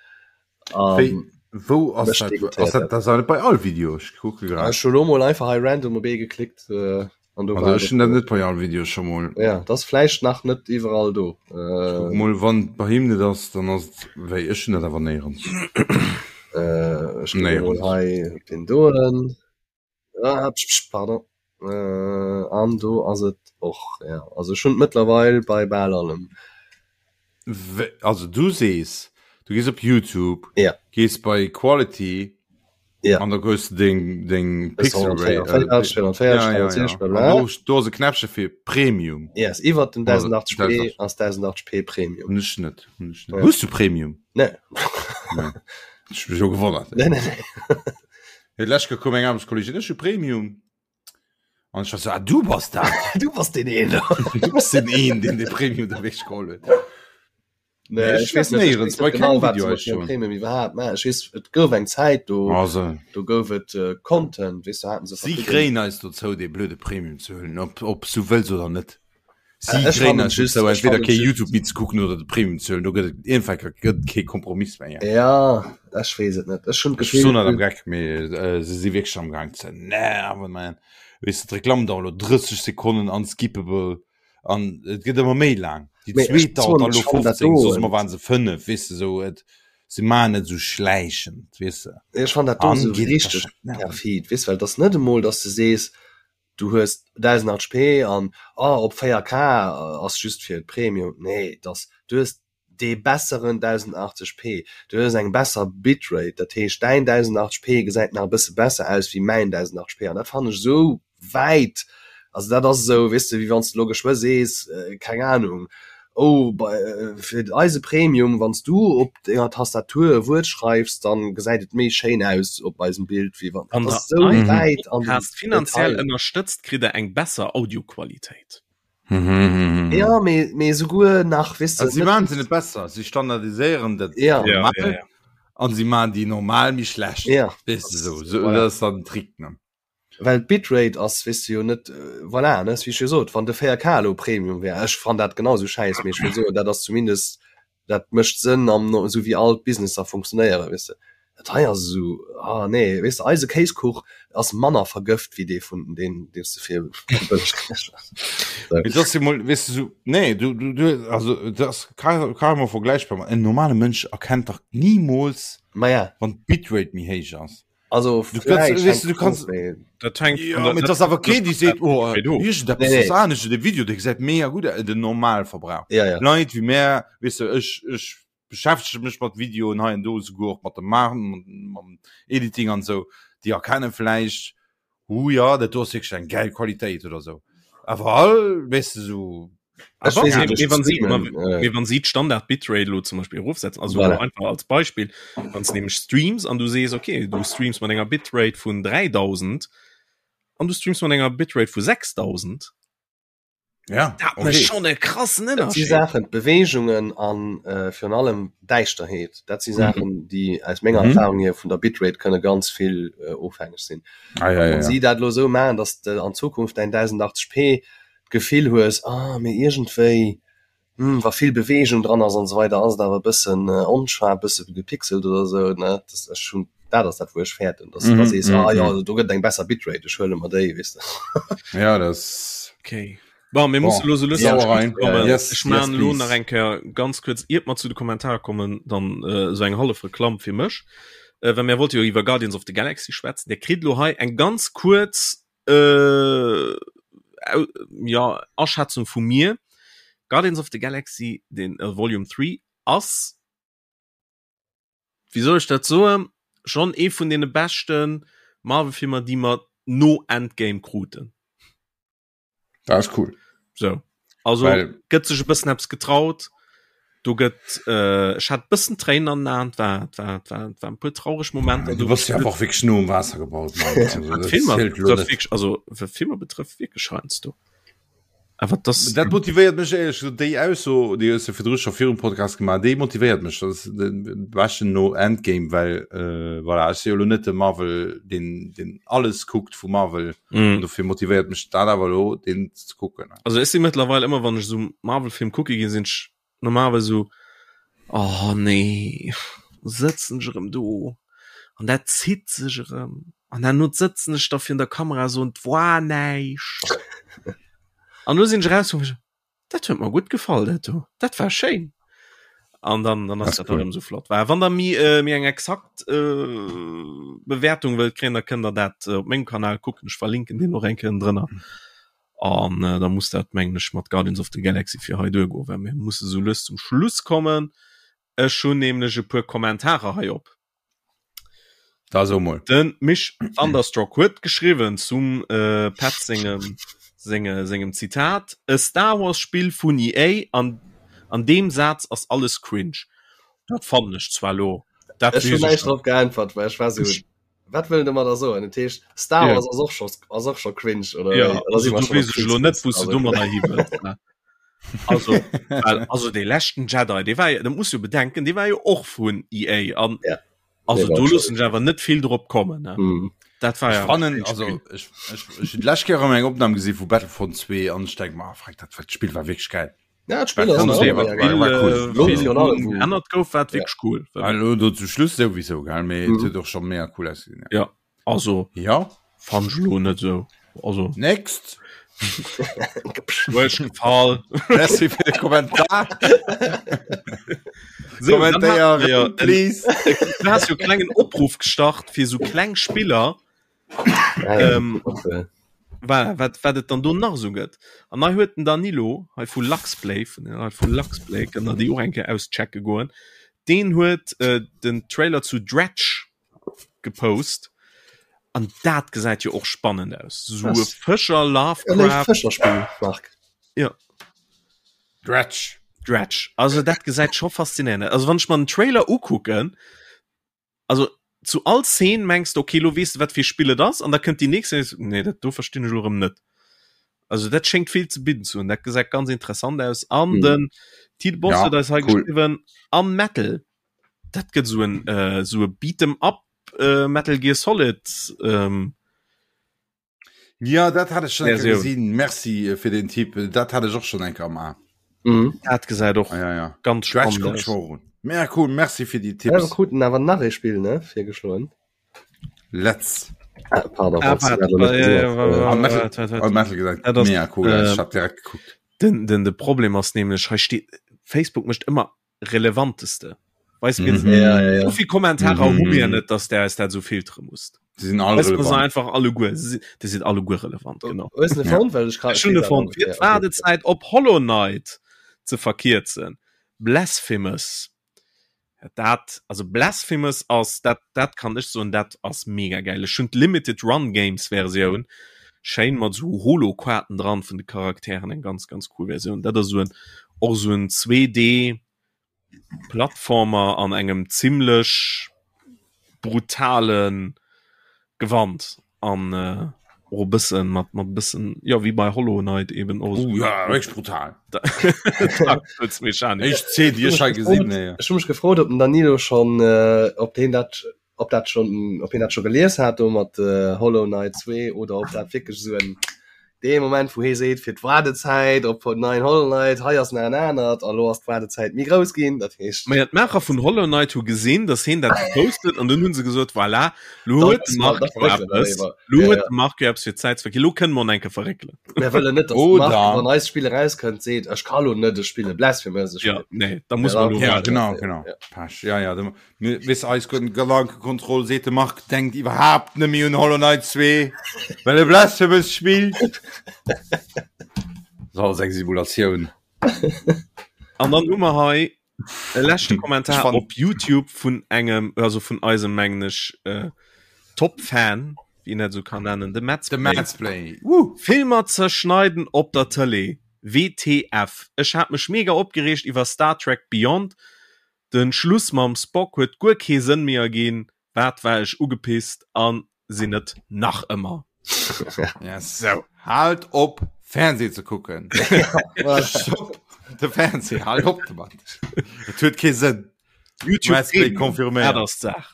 Wéi, wou ass dat? Ass dat, dat ass net bei all Video? Ech kucke grad. Ech hu lo mol einfach hei random op ee geklickt äh, an do war ech hunn dat net bei all Video scho mol. Ja, dat ass vläicht nach net iwwerall do. Äh, mol wann bei him net ass, dann ass et wéi ech hunn dat awer néierens. Äh, ech kucke mol hei op deen doen. Ah, psch, psch, pardon. Äh, an do ass et och, ja. Also ech hunn et mëttlerweil bei bal allem. Also du sees, du gees op YouTube, ja. gees bei Quality ja. an da goes du deng, deng Pixel Rate. Äh, ja, ja, ja. Do, do ass e Knäppche fir Premium. Yes, iwwer den 1080p ass 1080p Premium. Hunn ech net. Hunn ech net. Ja. Hues du Premium? Nee. nee. Ech mech jo gewonnert. Nee, nee, nee. Hey, lech koum eng Aarbechtskollegin, ech hu Premium. An ech war so, ah, du bass dat. Du bass den een. Du bass den een, deen de Premium da wéi geholl huet. Nee, ech weess net, ech weess net genau, wat se mat hirem Premium iwwerhaapt maachen. Ech weess, et gouf eng Zäit, do, also. do gouf et äh, Content, weess du, haten se Si kréien eis dozou, dee blöde Premium ze huelen, ob, ob s du wëlls oder net. Si äh, kréien eis just dozou, entweder kee YouTube méi ze kucken oder de Premium ze huelen. Do gëtt et iergendwann gëtt et kee Kompromiss méi. Ja, ech weess et net. Ech hunn d'Gefill. Ech soen net am Geck, mee äh, se si wierklech am Gaang ze nerven, man. Weess du, d'Reklamm dauert elo 30 Sekonnen, unskippable. An et gëtt ëmmer méi laang. Déi zweet dauert dann elo 15, soss ëmmer waren se 5, weess de, sou et se maachen et sou schläichend, weess de. Ech fannen dat do sou richteg perfid, weess, well et ass net emol, dass de sees, du hues 1080p an oh op 4K ass just fir d'Premium. Nee, et ass, du hues dee besseren 1080p, du hues eng besser Bitrate, dat heescht däin 1080p gesäit nach e bësse besser aus wéi mäin 1080p an dat fannen ech esou wäit, also dat ass esou, weess de, wéi wann s de elo geschwë sees, keng Anung, oh bei fir eise Premium, wann s du op denger Tastatur e Wuert schreifs, dann gesäit et méi schéin aus op eisem Bild wéi wann, dat ass esou wäit an den Podcast finanziell Detail. ënnerstëtzt, kritt der eng besser Audioqualitéit. Ja, mee, mee souguer nach, weess de, Also, si maachen se net besser, si standardiséieren dat Ja. Ja, normal ja, ja. an si maachen déi normal méi schlecht. Ja. Weess de, sou, sou, Voilà. dat ass dann den Trick, ne? Well d'Bitrate ass, weess de jo net, voilà, ne, wéi ech jo sot, wann de 4K elo Premium wär, ech fann dat genau esou schäiss, mee ech wëll soen, dat ass zumindest, dat mécht Sënn am, esou wéi all d'Businesser funktionéieren, weess de. Dat hei ass esou, ah nee, weess de, eise Kéiskuch ass manner vergëft wéi dee vun deen, deen s de fir bëlleg kriss. Mee dat ass jo mol, weess de, esou, nee, du, du, du, also dat ass carrément vergläichbar mat, en normale Mënsch erkennt dach nimools, Ma ja. wann d'Bitrate méi héich ass. Also Du kannst, weißt du, du kannst, Dat hängt ja, mit das awer okay, die seet oh, irgendetwas nee, nee. anescht, de Video de gesäit mega gut aus, den Normalverbrauch. Ja, ja. Leit wie mär, weißt du, ech, ech beschäftege mech mat Videoen hei an do, souguer och mat dem Maachen, mam Editing an sou, déi erkennen vläicht, hu ja, dat do ass wierklech eng gäil Qualitéit oder sou. Awer all, weißt du, sou Ech weess net, ech wann si, mee wann si d'Standard Bitrate elo zum Beispill erofsetzen, also voilà. einfach als Beispill, wann s nämlech streams an du sees okay, du streams mat enger Bitrate vun 3000 an du streams mat enger Bitrate vu 6000, ja, dat okay. mécht schonn e krassen Dat si Ënnerscheed. Saachen, d'Beweegungen an äh, virun allem Däischterheet, dat si Saachen, déi aus menger Mhm. Erfahrung hier vun der Bitrate kënne ganz vill äh, ofhängeg sinn. Ah, ja, ja, Wann ja. si dat elo esou maachen, datt de an Zukunft däin 1080p d'Gefill hues, ah, mee iergendwéi. Hm, wa vill Beweegung dran ass an esou weider, ass et awer e bëssen onscharf, e bësse gepixelt oder esou, ne? Das, ech hunn, dat ass dat, wou ech fäerten, dass du da sees, ah jo, do gëtt et eng besser Bitrate, ech huele mer déi, weess de. Ja, das. Okay. Bon, mir musse lo sou lues zum Schluss kommen. Yes, ech maachen lo nach eng Kéier ganz kuerz, iert mer zu de Kommentarer kommen, dann esou eng hallef Reklamm fir mech. Well mir wollte jo iwwer Guardians of the Galaxy schwätzen. Dir kritt lo hei eng ganz kuerz äh, ja, Aschätzung vu mir. Guardians of the Galaxy, den äh, Volume 3, ass, wéi soll ech dat soen, schon ee vun deene beschten Marvel-Filmer, déi mer no Endgame kruten. Dat ass cool. So. Also Well, gëtt sech e bëssen eppes getraut. Do gëtt äh, ech hat bëssen Tréinen an den Aen, war war war war e puer traureg Momenter. Du bass jo einfach wierklech no um Waasser gebaut. Also, Filmer betrëfft wierklech, also wat Filmer betrëfft wierklech heiansdo. Awer das Dat motivéiert mech éierlech gesot, déi Ausso, déi hues de virdru scho virum Podcast gemaach, déi motivéiert mech, dat ass de beschten no Endgame, well äh, voilà, ech si jo lo net de Marvel, deen, deen alles kuckt vu Marvel. Mm. Dofir motivéiert mech dat awer lo den ze kucken. Also ech si mëttlerweil ëmmer wann ech so Marvel-Film kucke ginn, sinn ech normalerweis so oh nee sëtzen ech erëm do an dat zitt sech erëm an herno sëtzen ech da virun der Kamera so an 't war näischt. An lo sinn ech eraus Dat huet mer gutt gefall dat do. Dat war schéin. An dann, dann ass dat cool. so flott. War wann der mi äh, mir eng exakt äh, Bewertung wëllt kréien, da kënnt der dat äh, op mengem Kanal kucken. Ech verlinken den och eng Kéier drënner. An äh, da muss dat mengen ech mat Guardians of the Galaxy fir hei duergoen, well mir musse sou lues zum Schluss kommen. Ech hunn nämlech e puer Kommentarer hei op. Da so mol. Den Mich Thunderstruck huet geschriwwen zum äh, Pat sengem, senge, sengem Zitat, E Star Wars Spill vun EA an an deem Saz ass alles cringe. Dat fannen ech zwar lo. Dat Ech hunn näischt drop geäntwert, well ech war sou, wat wëll en domadder soen? Dat heescht, Star Wars ass och scho, ass och scho cringe, oder? Ja, oder si mer scho weess ech lo net, wou s du domadder hi wëlls, ne? Also, well, also dee leschten Jedi, dee war jo, dat muss jo bedenken, dee war jo och vun EA an ja. also do loossen ech awer net vill drop kommen ne? Mm. Dat war ja fannen, also ech, ech, ech hunn d'lescht Kéier eng Opnam gesi vu Battlefront 2 an ech denk mer, ah, dat Spill war wierklech geil. Ja, d'Spill ass ännert gouf, war wierklech cool. Hallo, do zum Schluss souwisou gell, mee mm. huet och scho mega cool ausgesinn. Ja. Also ja fand ech lo net sou. Also next Huet gefall. Merci fir de Kommentar. So, Kommentéier, ja, please. Du hast jo klengen Opruff gestart fir sou kleng Spiller. Ähm, voilà, wat, wat et dann do nach sou gëtt. An hei huet den Danilo hei vu Luxplay, vun den Leit vu Luxplay, kënnt der déi och eng Kéier auschecke goen. Deen huet äh, den Trailer zu Dredge gepost an dat gesäit jo och spannend aus. So e Fëscher Lovecraft Fëscherspill Marc. Ja. Dredge. Dredge. Also dat gesäit scho faszinéierend. Also wann ech mer den Trailer ukucken, also zu all Szene mengs de okay, lo weess de wat fir Spill et ass an da kënnt déi nächst Szene, nee dat do verstinn ech lo erëm net. Also dat schéngt vill ze bidden ze hunn. Dat gesäit ganz interessant aus an mhm. den Tite Boss huet ja, eis hei cool. geschriwwen an Metal. Dat gëtt sou en äh, sou e Beat'em up äh, Metal Gear Solid ähm, Ja dat hat ech schon eng Kéier gesinn. Merci äh, fir den Tipp. Dat hat ech och schon eng Kéier am A. Mhm. Dat gesäit och ah, ja, ja. ganz spannend aus. Mega cool, merci fir déi Tipps. Ja, wir kruten awer nach ee Spill ne virgeschloen. Let's. Ah, pardon, ah, falls du dat noch net gesinn hast. Ah, Metal, ah, Metal gesagt. Dat ass, Mega cool, äh, ich hab direkt geguckt. Den, den, de Problem ass nämlech, hei steet, Facebook mécht ëmmer relevanteste weißt du, mhm. ja, ja, ja. so viel Kommentare mhm. hu mir net dass der es dat so filtere musst die sind alle weißt, relevant. einfach alle Gu die sind alle Gu relevant genau Wartezeit op Hollow Knight ze verkierzen Blasphemous dat also Blasphemous ass dat dat kann ech soen dat ass mega geil ech hunn d'Limited Run Games Versioun schéin mat sou Holoquarten dran vun de Charakteren eng ganz ganz cool Versioun dat ass sou en och sou en 2D Plattformer an engem zimlech brutalen Gewand an äh, och e bëssen mat mat bëssen jo wéi bei Hollow Knight eben och Oh ja, wierklech brutal. Mechanik. Éischt Zeen, déi ech hei gesinn, nee. Ech hu mech gefrot, ob den Danilo schonn, äh, ob deen dat, ob dat schonn, ob hien dat scho gelies hat do mat äh, Hollow Knight 2 oder ob dat wierklech esou en. Dee Moment wou hee seet fir d'Waardezäit op neien Hollow Knight, hei ass nach en anert a lo ass d'Waardezäit méi grouss ginn, dat heescht. Maja d'Maacher vun Hollow Knight hu gesinn, datt heen dat gepost huet an dunn hu se gesot, voilà, lo huet de Marc jo eppes, lo huet de Marc jo eppes fir d'Zäit ze verginn, lo kënne mer en enke verréckelen. Mir wëllen net, datt de Marc, wann eist Spill erauskënnt, seet, ech ka lo net, ech spille Blasphemous, ech spillen. Jo, nee, da muss mer lo waarden. Ja, genau, genau. Pech, ja, ja. Weess eis Gedankekontroll seet de Marc denkt iwwerhaapt net méi un Hollow Knight 2, well e Blasphemous spillt. So ass eng Simulatioun. An dann hu mer hei e leschte Kommentar op YouTube vun engem also vun eisem mengen ech äh, Top-Fan, wéi een dat esou kann nennen, de Madsplay. De Madsplay. Woo! Filmer zerschneiden op der Tëlee, WTF. Ech hat mech mega opgereegt iwwer Star Trek Beyond. Den Schluss mam Spock huet guer kee Sënn méi erginn, wat war ech ugepisst an sinn et nach ëmmer. Yes. Sou. Haalt op Fernseh ze kucken. Stopp de Fernseh, haalt op domat. Et huet kee Sënn. YouTube Premium, confirméiert. Dat ass d'Saach.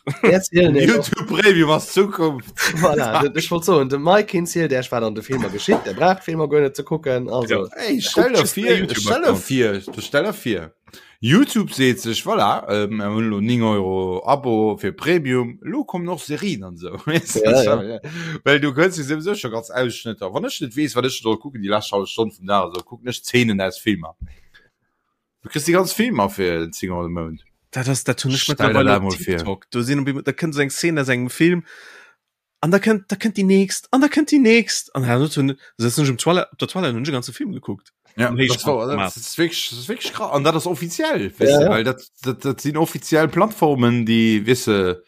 YouTube Premium ass d'Zukunft. Voilà, ech wollt soen, de Mike hien zielt Iech wat an de Filmer geschitt, der braucht d'Filmer guer net ze kucken. Also. Ja. Hey, stell der vir, stell der vir, stell der vir. Youtube seet sech, voilà, mir hunn elo 9 Euro Abo fir Premium, elo kommen och Serien an esou. Ja, ja. Well du kënns jo souwisou scho ganz Ausschnëtter. Wann ech net weess, wat ech soll kucken déi lescht hallef Stonn vum Dag, esou kucken ech Zeenen aus Filmer. Du kriss déi ganz Filmer fir 10 Euro de Mount. Dat ass, dat hunn ech Stell der mëttlerweile dat op mol vir. TikTok. Do sinn op eemol, da kënnt esou eng Szene aus engem Film an da kënnt, da kënnt déi nächst an da kënnt déi nächst an herno hunn sëtzen ech um Toilette, op der Toilette hunn ech e ganze Film gekuckt. Ja, Am das war, Héichformat. das ist wirklich, das ist wirklich krass. An dat ass offiziell, weißt Ja, du, ja. well dat, dat, dat sinn offiziell Plattformen, déi, weißt du,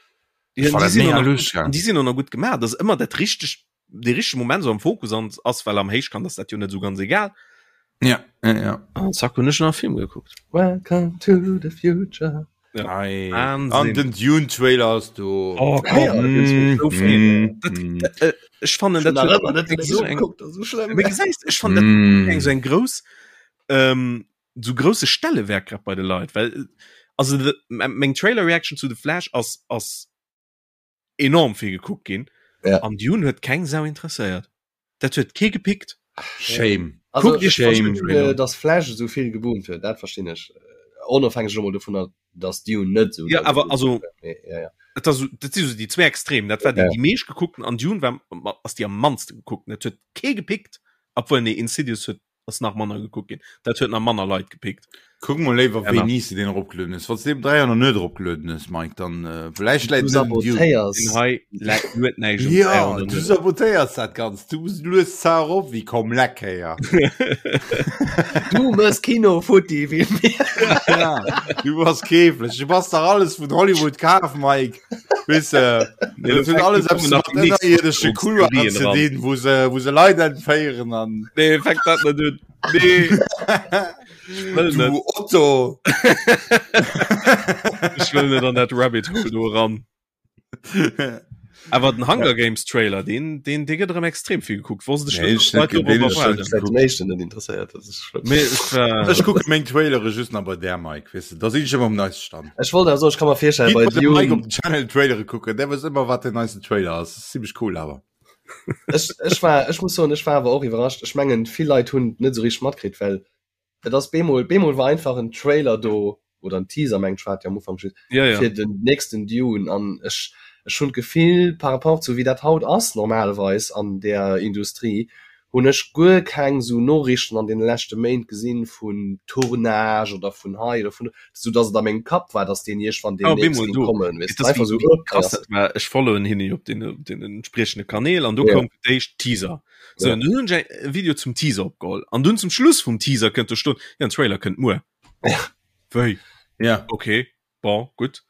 Ja, war die dat sinn mega och nach lustig, gut, ja. die sinn och nach gut gemaach. Das ëmmer dat richteg, de richtege Moment so am Fokus an ass, well am Héichkant ass dat jo net so ganz egal. Ja, ja, ja. An zack hunn ech nach e Film gekuckt. Welcome to the future. Ja. Ei. Wahnsinn. An den Dune Trailer ass do. Oh, komm, Ja, mm, so mm, dat, mm. dat, äh, ech fannen dat Nach huet ëmmer net eng so eng geguckt, das ist so schlimm. Mee gesäis, ech fannen dat Mm. eng so eng grouss ähm, so grousse Stellewerk grad bei de Leit, well äh, also de, meng Trailer Reaction zu The Flash ass ass enorm vill gekuckt ginn Ja. an Dune huet keng Sau interesséiert. Dat huet kee gepickt. Shame. Also, Kuckt iech Shame. den Trailer äh, dass Flash esou vill geboomt huet, dat verstinn ech. Onofhängeg elo mol dovunner, dass Dune net esou Ja, doll awer geboomt also huet. Mee, ja, ja. dat ass, dat si so déi zwee Extrem. Dat war déi, Ja. déi meescht gekuckten an Dune war ass déi am mannste gekuckten. Dat huet kee gepickt, obwuel nee Insidious huet ass nach manner gekuckt ginn. Dat huet nach manner Leit gepickt. Kuck mol léiwer Genau. wéini s de deen eropgelueden hues. Wann s de deen 3 Joer net eropgelueden hues, Mike, dann äh, vläicht Du läit et net un Dune. sabotéiers. Den hei läit huet näischt um Ja, 300 du net. sabotéiers dat Ganzt. Du lues zwar erop wéi komm leck héier. Du mëss Kino futti wéi mir. Ja, du bass keeflech. Du bass dach alles vun Hollywood kaf, Mike. Weess de, Nee, dat huet alles eppes nach mat die nächst ënnerierdesche Couloiren Verschwörungstheorien ze ran. dinn, wou se, wou se Leit entféieren an. Nee, fänk dat net un. Nee. Ech wëll net. Du Otto! Ech wëll net an dat Rabbit Hole do eran. Awer den Hunger Games Trailer, deen, deen, dee gëtt erëm extrem vill gekuckt. Wosst ech Nee, net, ech dass d'Leit net, dorop deen ech erwaarden. net Säit dem éischten net interesséiert, das ist schlimm. Mee ech war. Ech kucke meng Trailere just nach bei där, Mike, weess de, da sinn ech ëmmer um neiste Stand. Ech wollt awer soen, ech ka mer virstellen, Gitt bei bei dem Mike op Dune, den Channel Trailere kucken, der weess ëmmer, wat den neisten Trailer ass. Das ist ziemlech cool awer. ech, ech war, ech muss soen, ech war awer och iwwerrascht. Ech mengen, vill Leit hunn et net esou richteg matkritt, well Et ass bemol, bemol war einfach en Trailer do, oder en Teaser mengt ech war et jo am Ufank just, Ja, ja. fir den nächsten Dune an ech, ech hunn d'Gefill par rapport zu wéi dat haut ass normalerweis an där Industrie, hunn ech guer keng esou Noriichten an deene leschte Méint gesinn vun Tournage oder vun hei oder vun do, sou dass et a mengem Kapp war, dass deen iergendwann Ah, deemnächst bemol géing do. kommen, weess Et de, ass einfach wéi, sou, wéi oh, hei krass ass dat war. Ech followen hinne jo op den, op den entspriechende Kanäl an do Ja. koum fir d'éischt Teaser. So, Ja. an dunn hunn ech e Video zum Teaser opgeholl. An dunn zum Schluss vum Teaser kënnt do stoen, ja, den Trailer kënnt muer. Wéi? Ja. Okay, bon, gutt.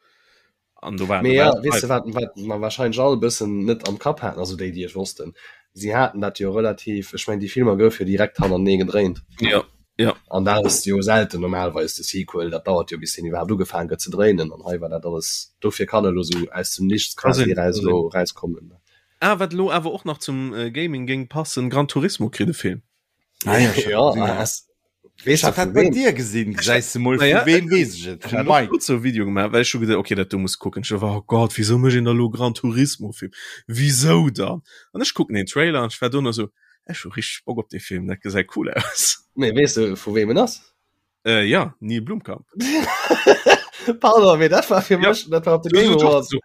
An do war, Mee do war ja, et weess de, live. wat, wat mer wahrscheinlech all e bëssen net am Kapp haten, also déi, déi et wossten, si haten dat jo relativ, ech mengen, déi Filmer goufe jo direkt hannertenee gedréint. Ja, ja. An dat ass jo selten normalerweis de Sequel, dat dauert jo, bis deen iwwerhaapt ugefaangen gëtt ze dréinen. An hei war dat alles, dofir kann elo sou aus dem Nichts Ka quasi sinn, eraus ka sinn. elo erauskommen. Ah, wat elo awer och nach zum Gaming géing passen, Gran Turismo kritt e Film. Ah, ja, ich Ja, hab gesehen, ja. ass, weess Ich hab du dat vu bei wem? dir gesinn, gesäis de mol, Naja, vu wem weess ech et? Ech Vum hat och Mike. kurz so e Video gemaach, well ech hu geduecht, okay, dat do muss kucken. Ech war, oh Gott, wieso mécht een da lo Gran Turismo Film? Wieso dann? An ech kucken den Trailer an ech war dono so, Ech hu richteg Bock op dee Film, dat gesäit cool aus. Mee weess de vu wem en ass? Äh, ja, Neil Blomkamp. Pardon, mee dat war fir mech, dat war op de Game Awards. So,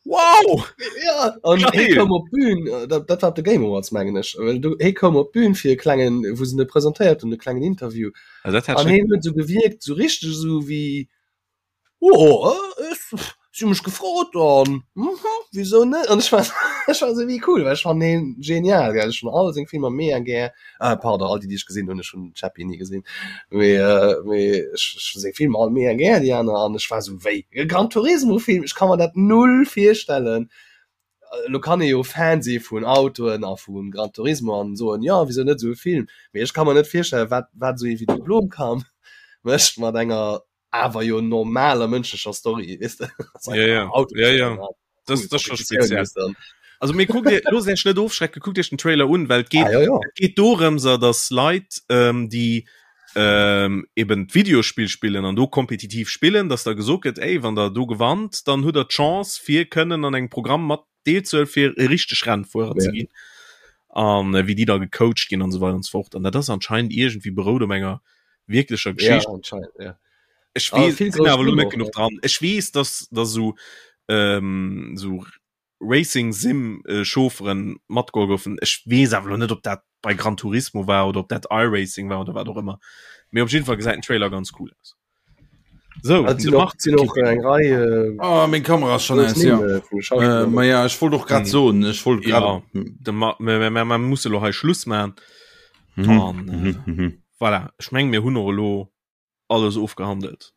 wow! Ja, an hie koum op d'Bün, äh, dat, dat war op de Game Awards mengen ech. Well du, hie koum op d'Bün fir e klengen, wou se en presentéiert hunn, e klengen Interview. Also, dat hat An schon hien huet sou gewierkt, sou richteg sou wéi Oh, ech, si hu mech gefrot an mhm, wisou net? An ech war, ech war sou wéi cool, well ech fannen hien genial, gell. Ech hunn all seng Filmer mega gär. Ah, pardon, all déi, déi ech gesinn hunn, ech hunn Chappie ni gesinn. Mee, mee ech, ech hunn seng Filmer all mega gär, déi aner, an ech war sou wéi, e Gran Turismo-Film, ech ka mer dat null virstellen. Elo kann ee jo Fan si vun Autoen a vu Gran Turismo an soen, jo, wisou net esou e Film? Mee ech ka mer net virstellen, wat, wat esou ee wéi de Blomkamp mécht mat enger awer jo normaler mënschlecher Story weess de ja, ja. ja, ja. Das, das schon speziell. Also mir guckt dir los net ofschrecken guckt Iech den Trailer un well geht ah, ja, ja. geht dorëmser dass Leit ähm, die ähm, eben d'Videospill spillen an do kompetitiv spillen dass da gesot gëtt ey wann der do gewannt dann hutt der d'Chance fir kënnen an engem Programm mat deelzuel fir e richteg Rennfuerer ja. ze ginn an äh, wéi die da gecoacht ginn an so weiter und so fort an dat ass anscheinend irgendwie berout um enger wirklecher Geschicht ja, anscheinend, ja. Ech ah, wees, sinn awer lo net genuch dran. Ech wees dass da so ähm, so Racing Sim äh, Chaufferen matgeholl goufen. Ech wees awer lo net ob dat bei Gran Turismo war oder ob dat iRacing war oder wat och ëmmer. Mee op jeden Fall gesäit den Trailer ganz cool aus. So, ah, sinn och, sinn och eng Rei äh, ah, meng Kamera ass schon aus, ja. Äh, vun Schauspiller. Äh, ma ja, ech wollt och grad Mhm. soen, ech wollt grad Ja, de ma, mir, mir, mir, mir musse lo hei Schluss man. Mhm. An, äh, Mhm, mhm. voilà. Ech meng mir hunn och elo alles ofgehandelt.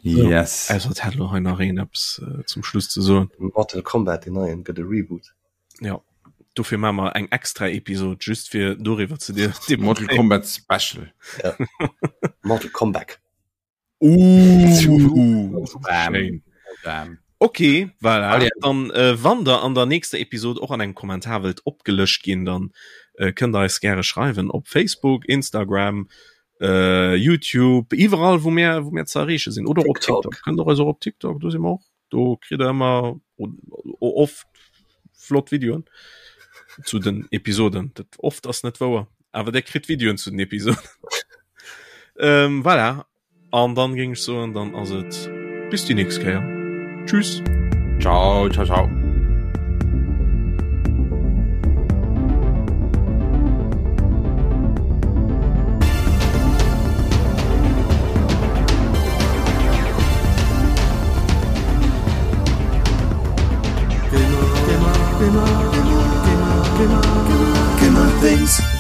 Yes. Ausser et hätt elo hei nach een eppes äh, zum Schluss ze soen. Mortal Kombat den neien gëtt e Reboot. Ja. Dofir maache mer eng extra Episode just fir doriwwer ze dir. Mortal Kombat Special. Ja. Mortal Kombat. Uh, Bam. schéin. Bam. Okay, voilà. Allez. Dann äh, wann der an der nächster Episode och an engem Kommentar wëllt opgelëscht ginn, dann äh, kënnt der eis gäre schreiwen op Facebook, Instagram, äh, YouTube, iwwerall wou mir wou mir ze erreeche sinn oder op TikTok. TikTok. Kënnt der eis och op TikTok, do si mer och. Do kritt der ëmmer oft flott Videoen zu den Episoden. Dat oft ass net wouer, awer der kritt Videoen zu den Episoden. ähm, voilà. An dann géing ech soen, dann ass et bis déi nächst Kéier. Tschüss. Ciao, ciao, ciao. Gamer, Gamer, Gamer, Gamer, Gamer, Gamer, Gamer, Gamer Things.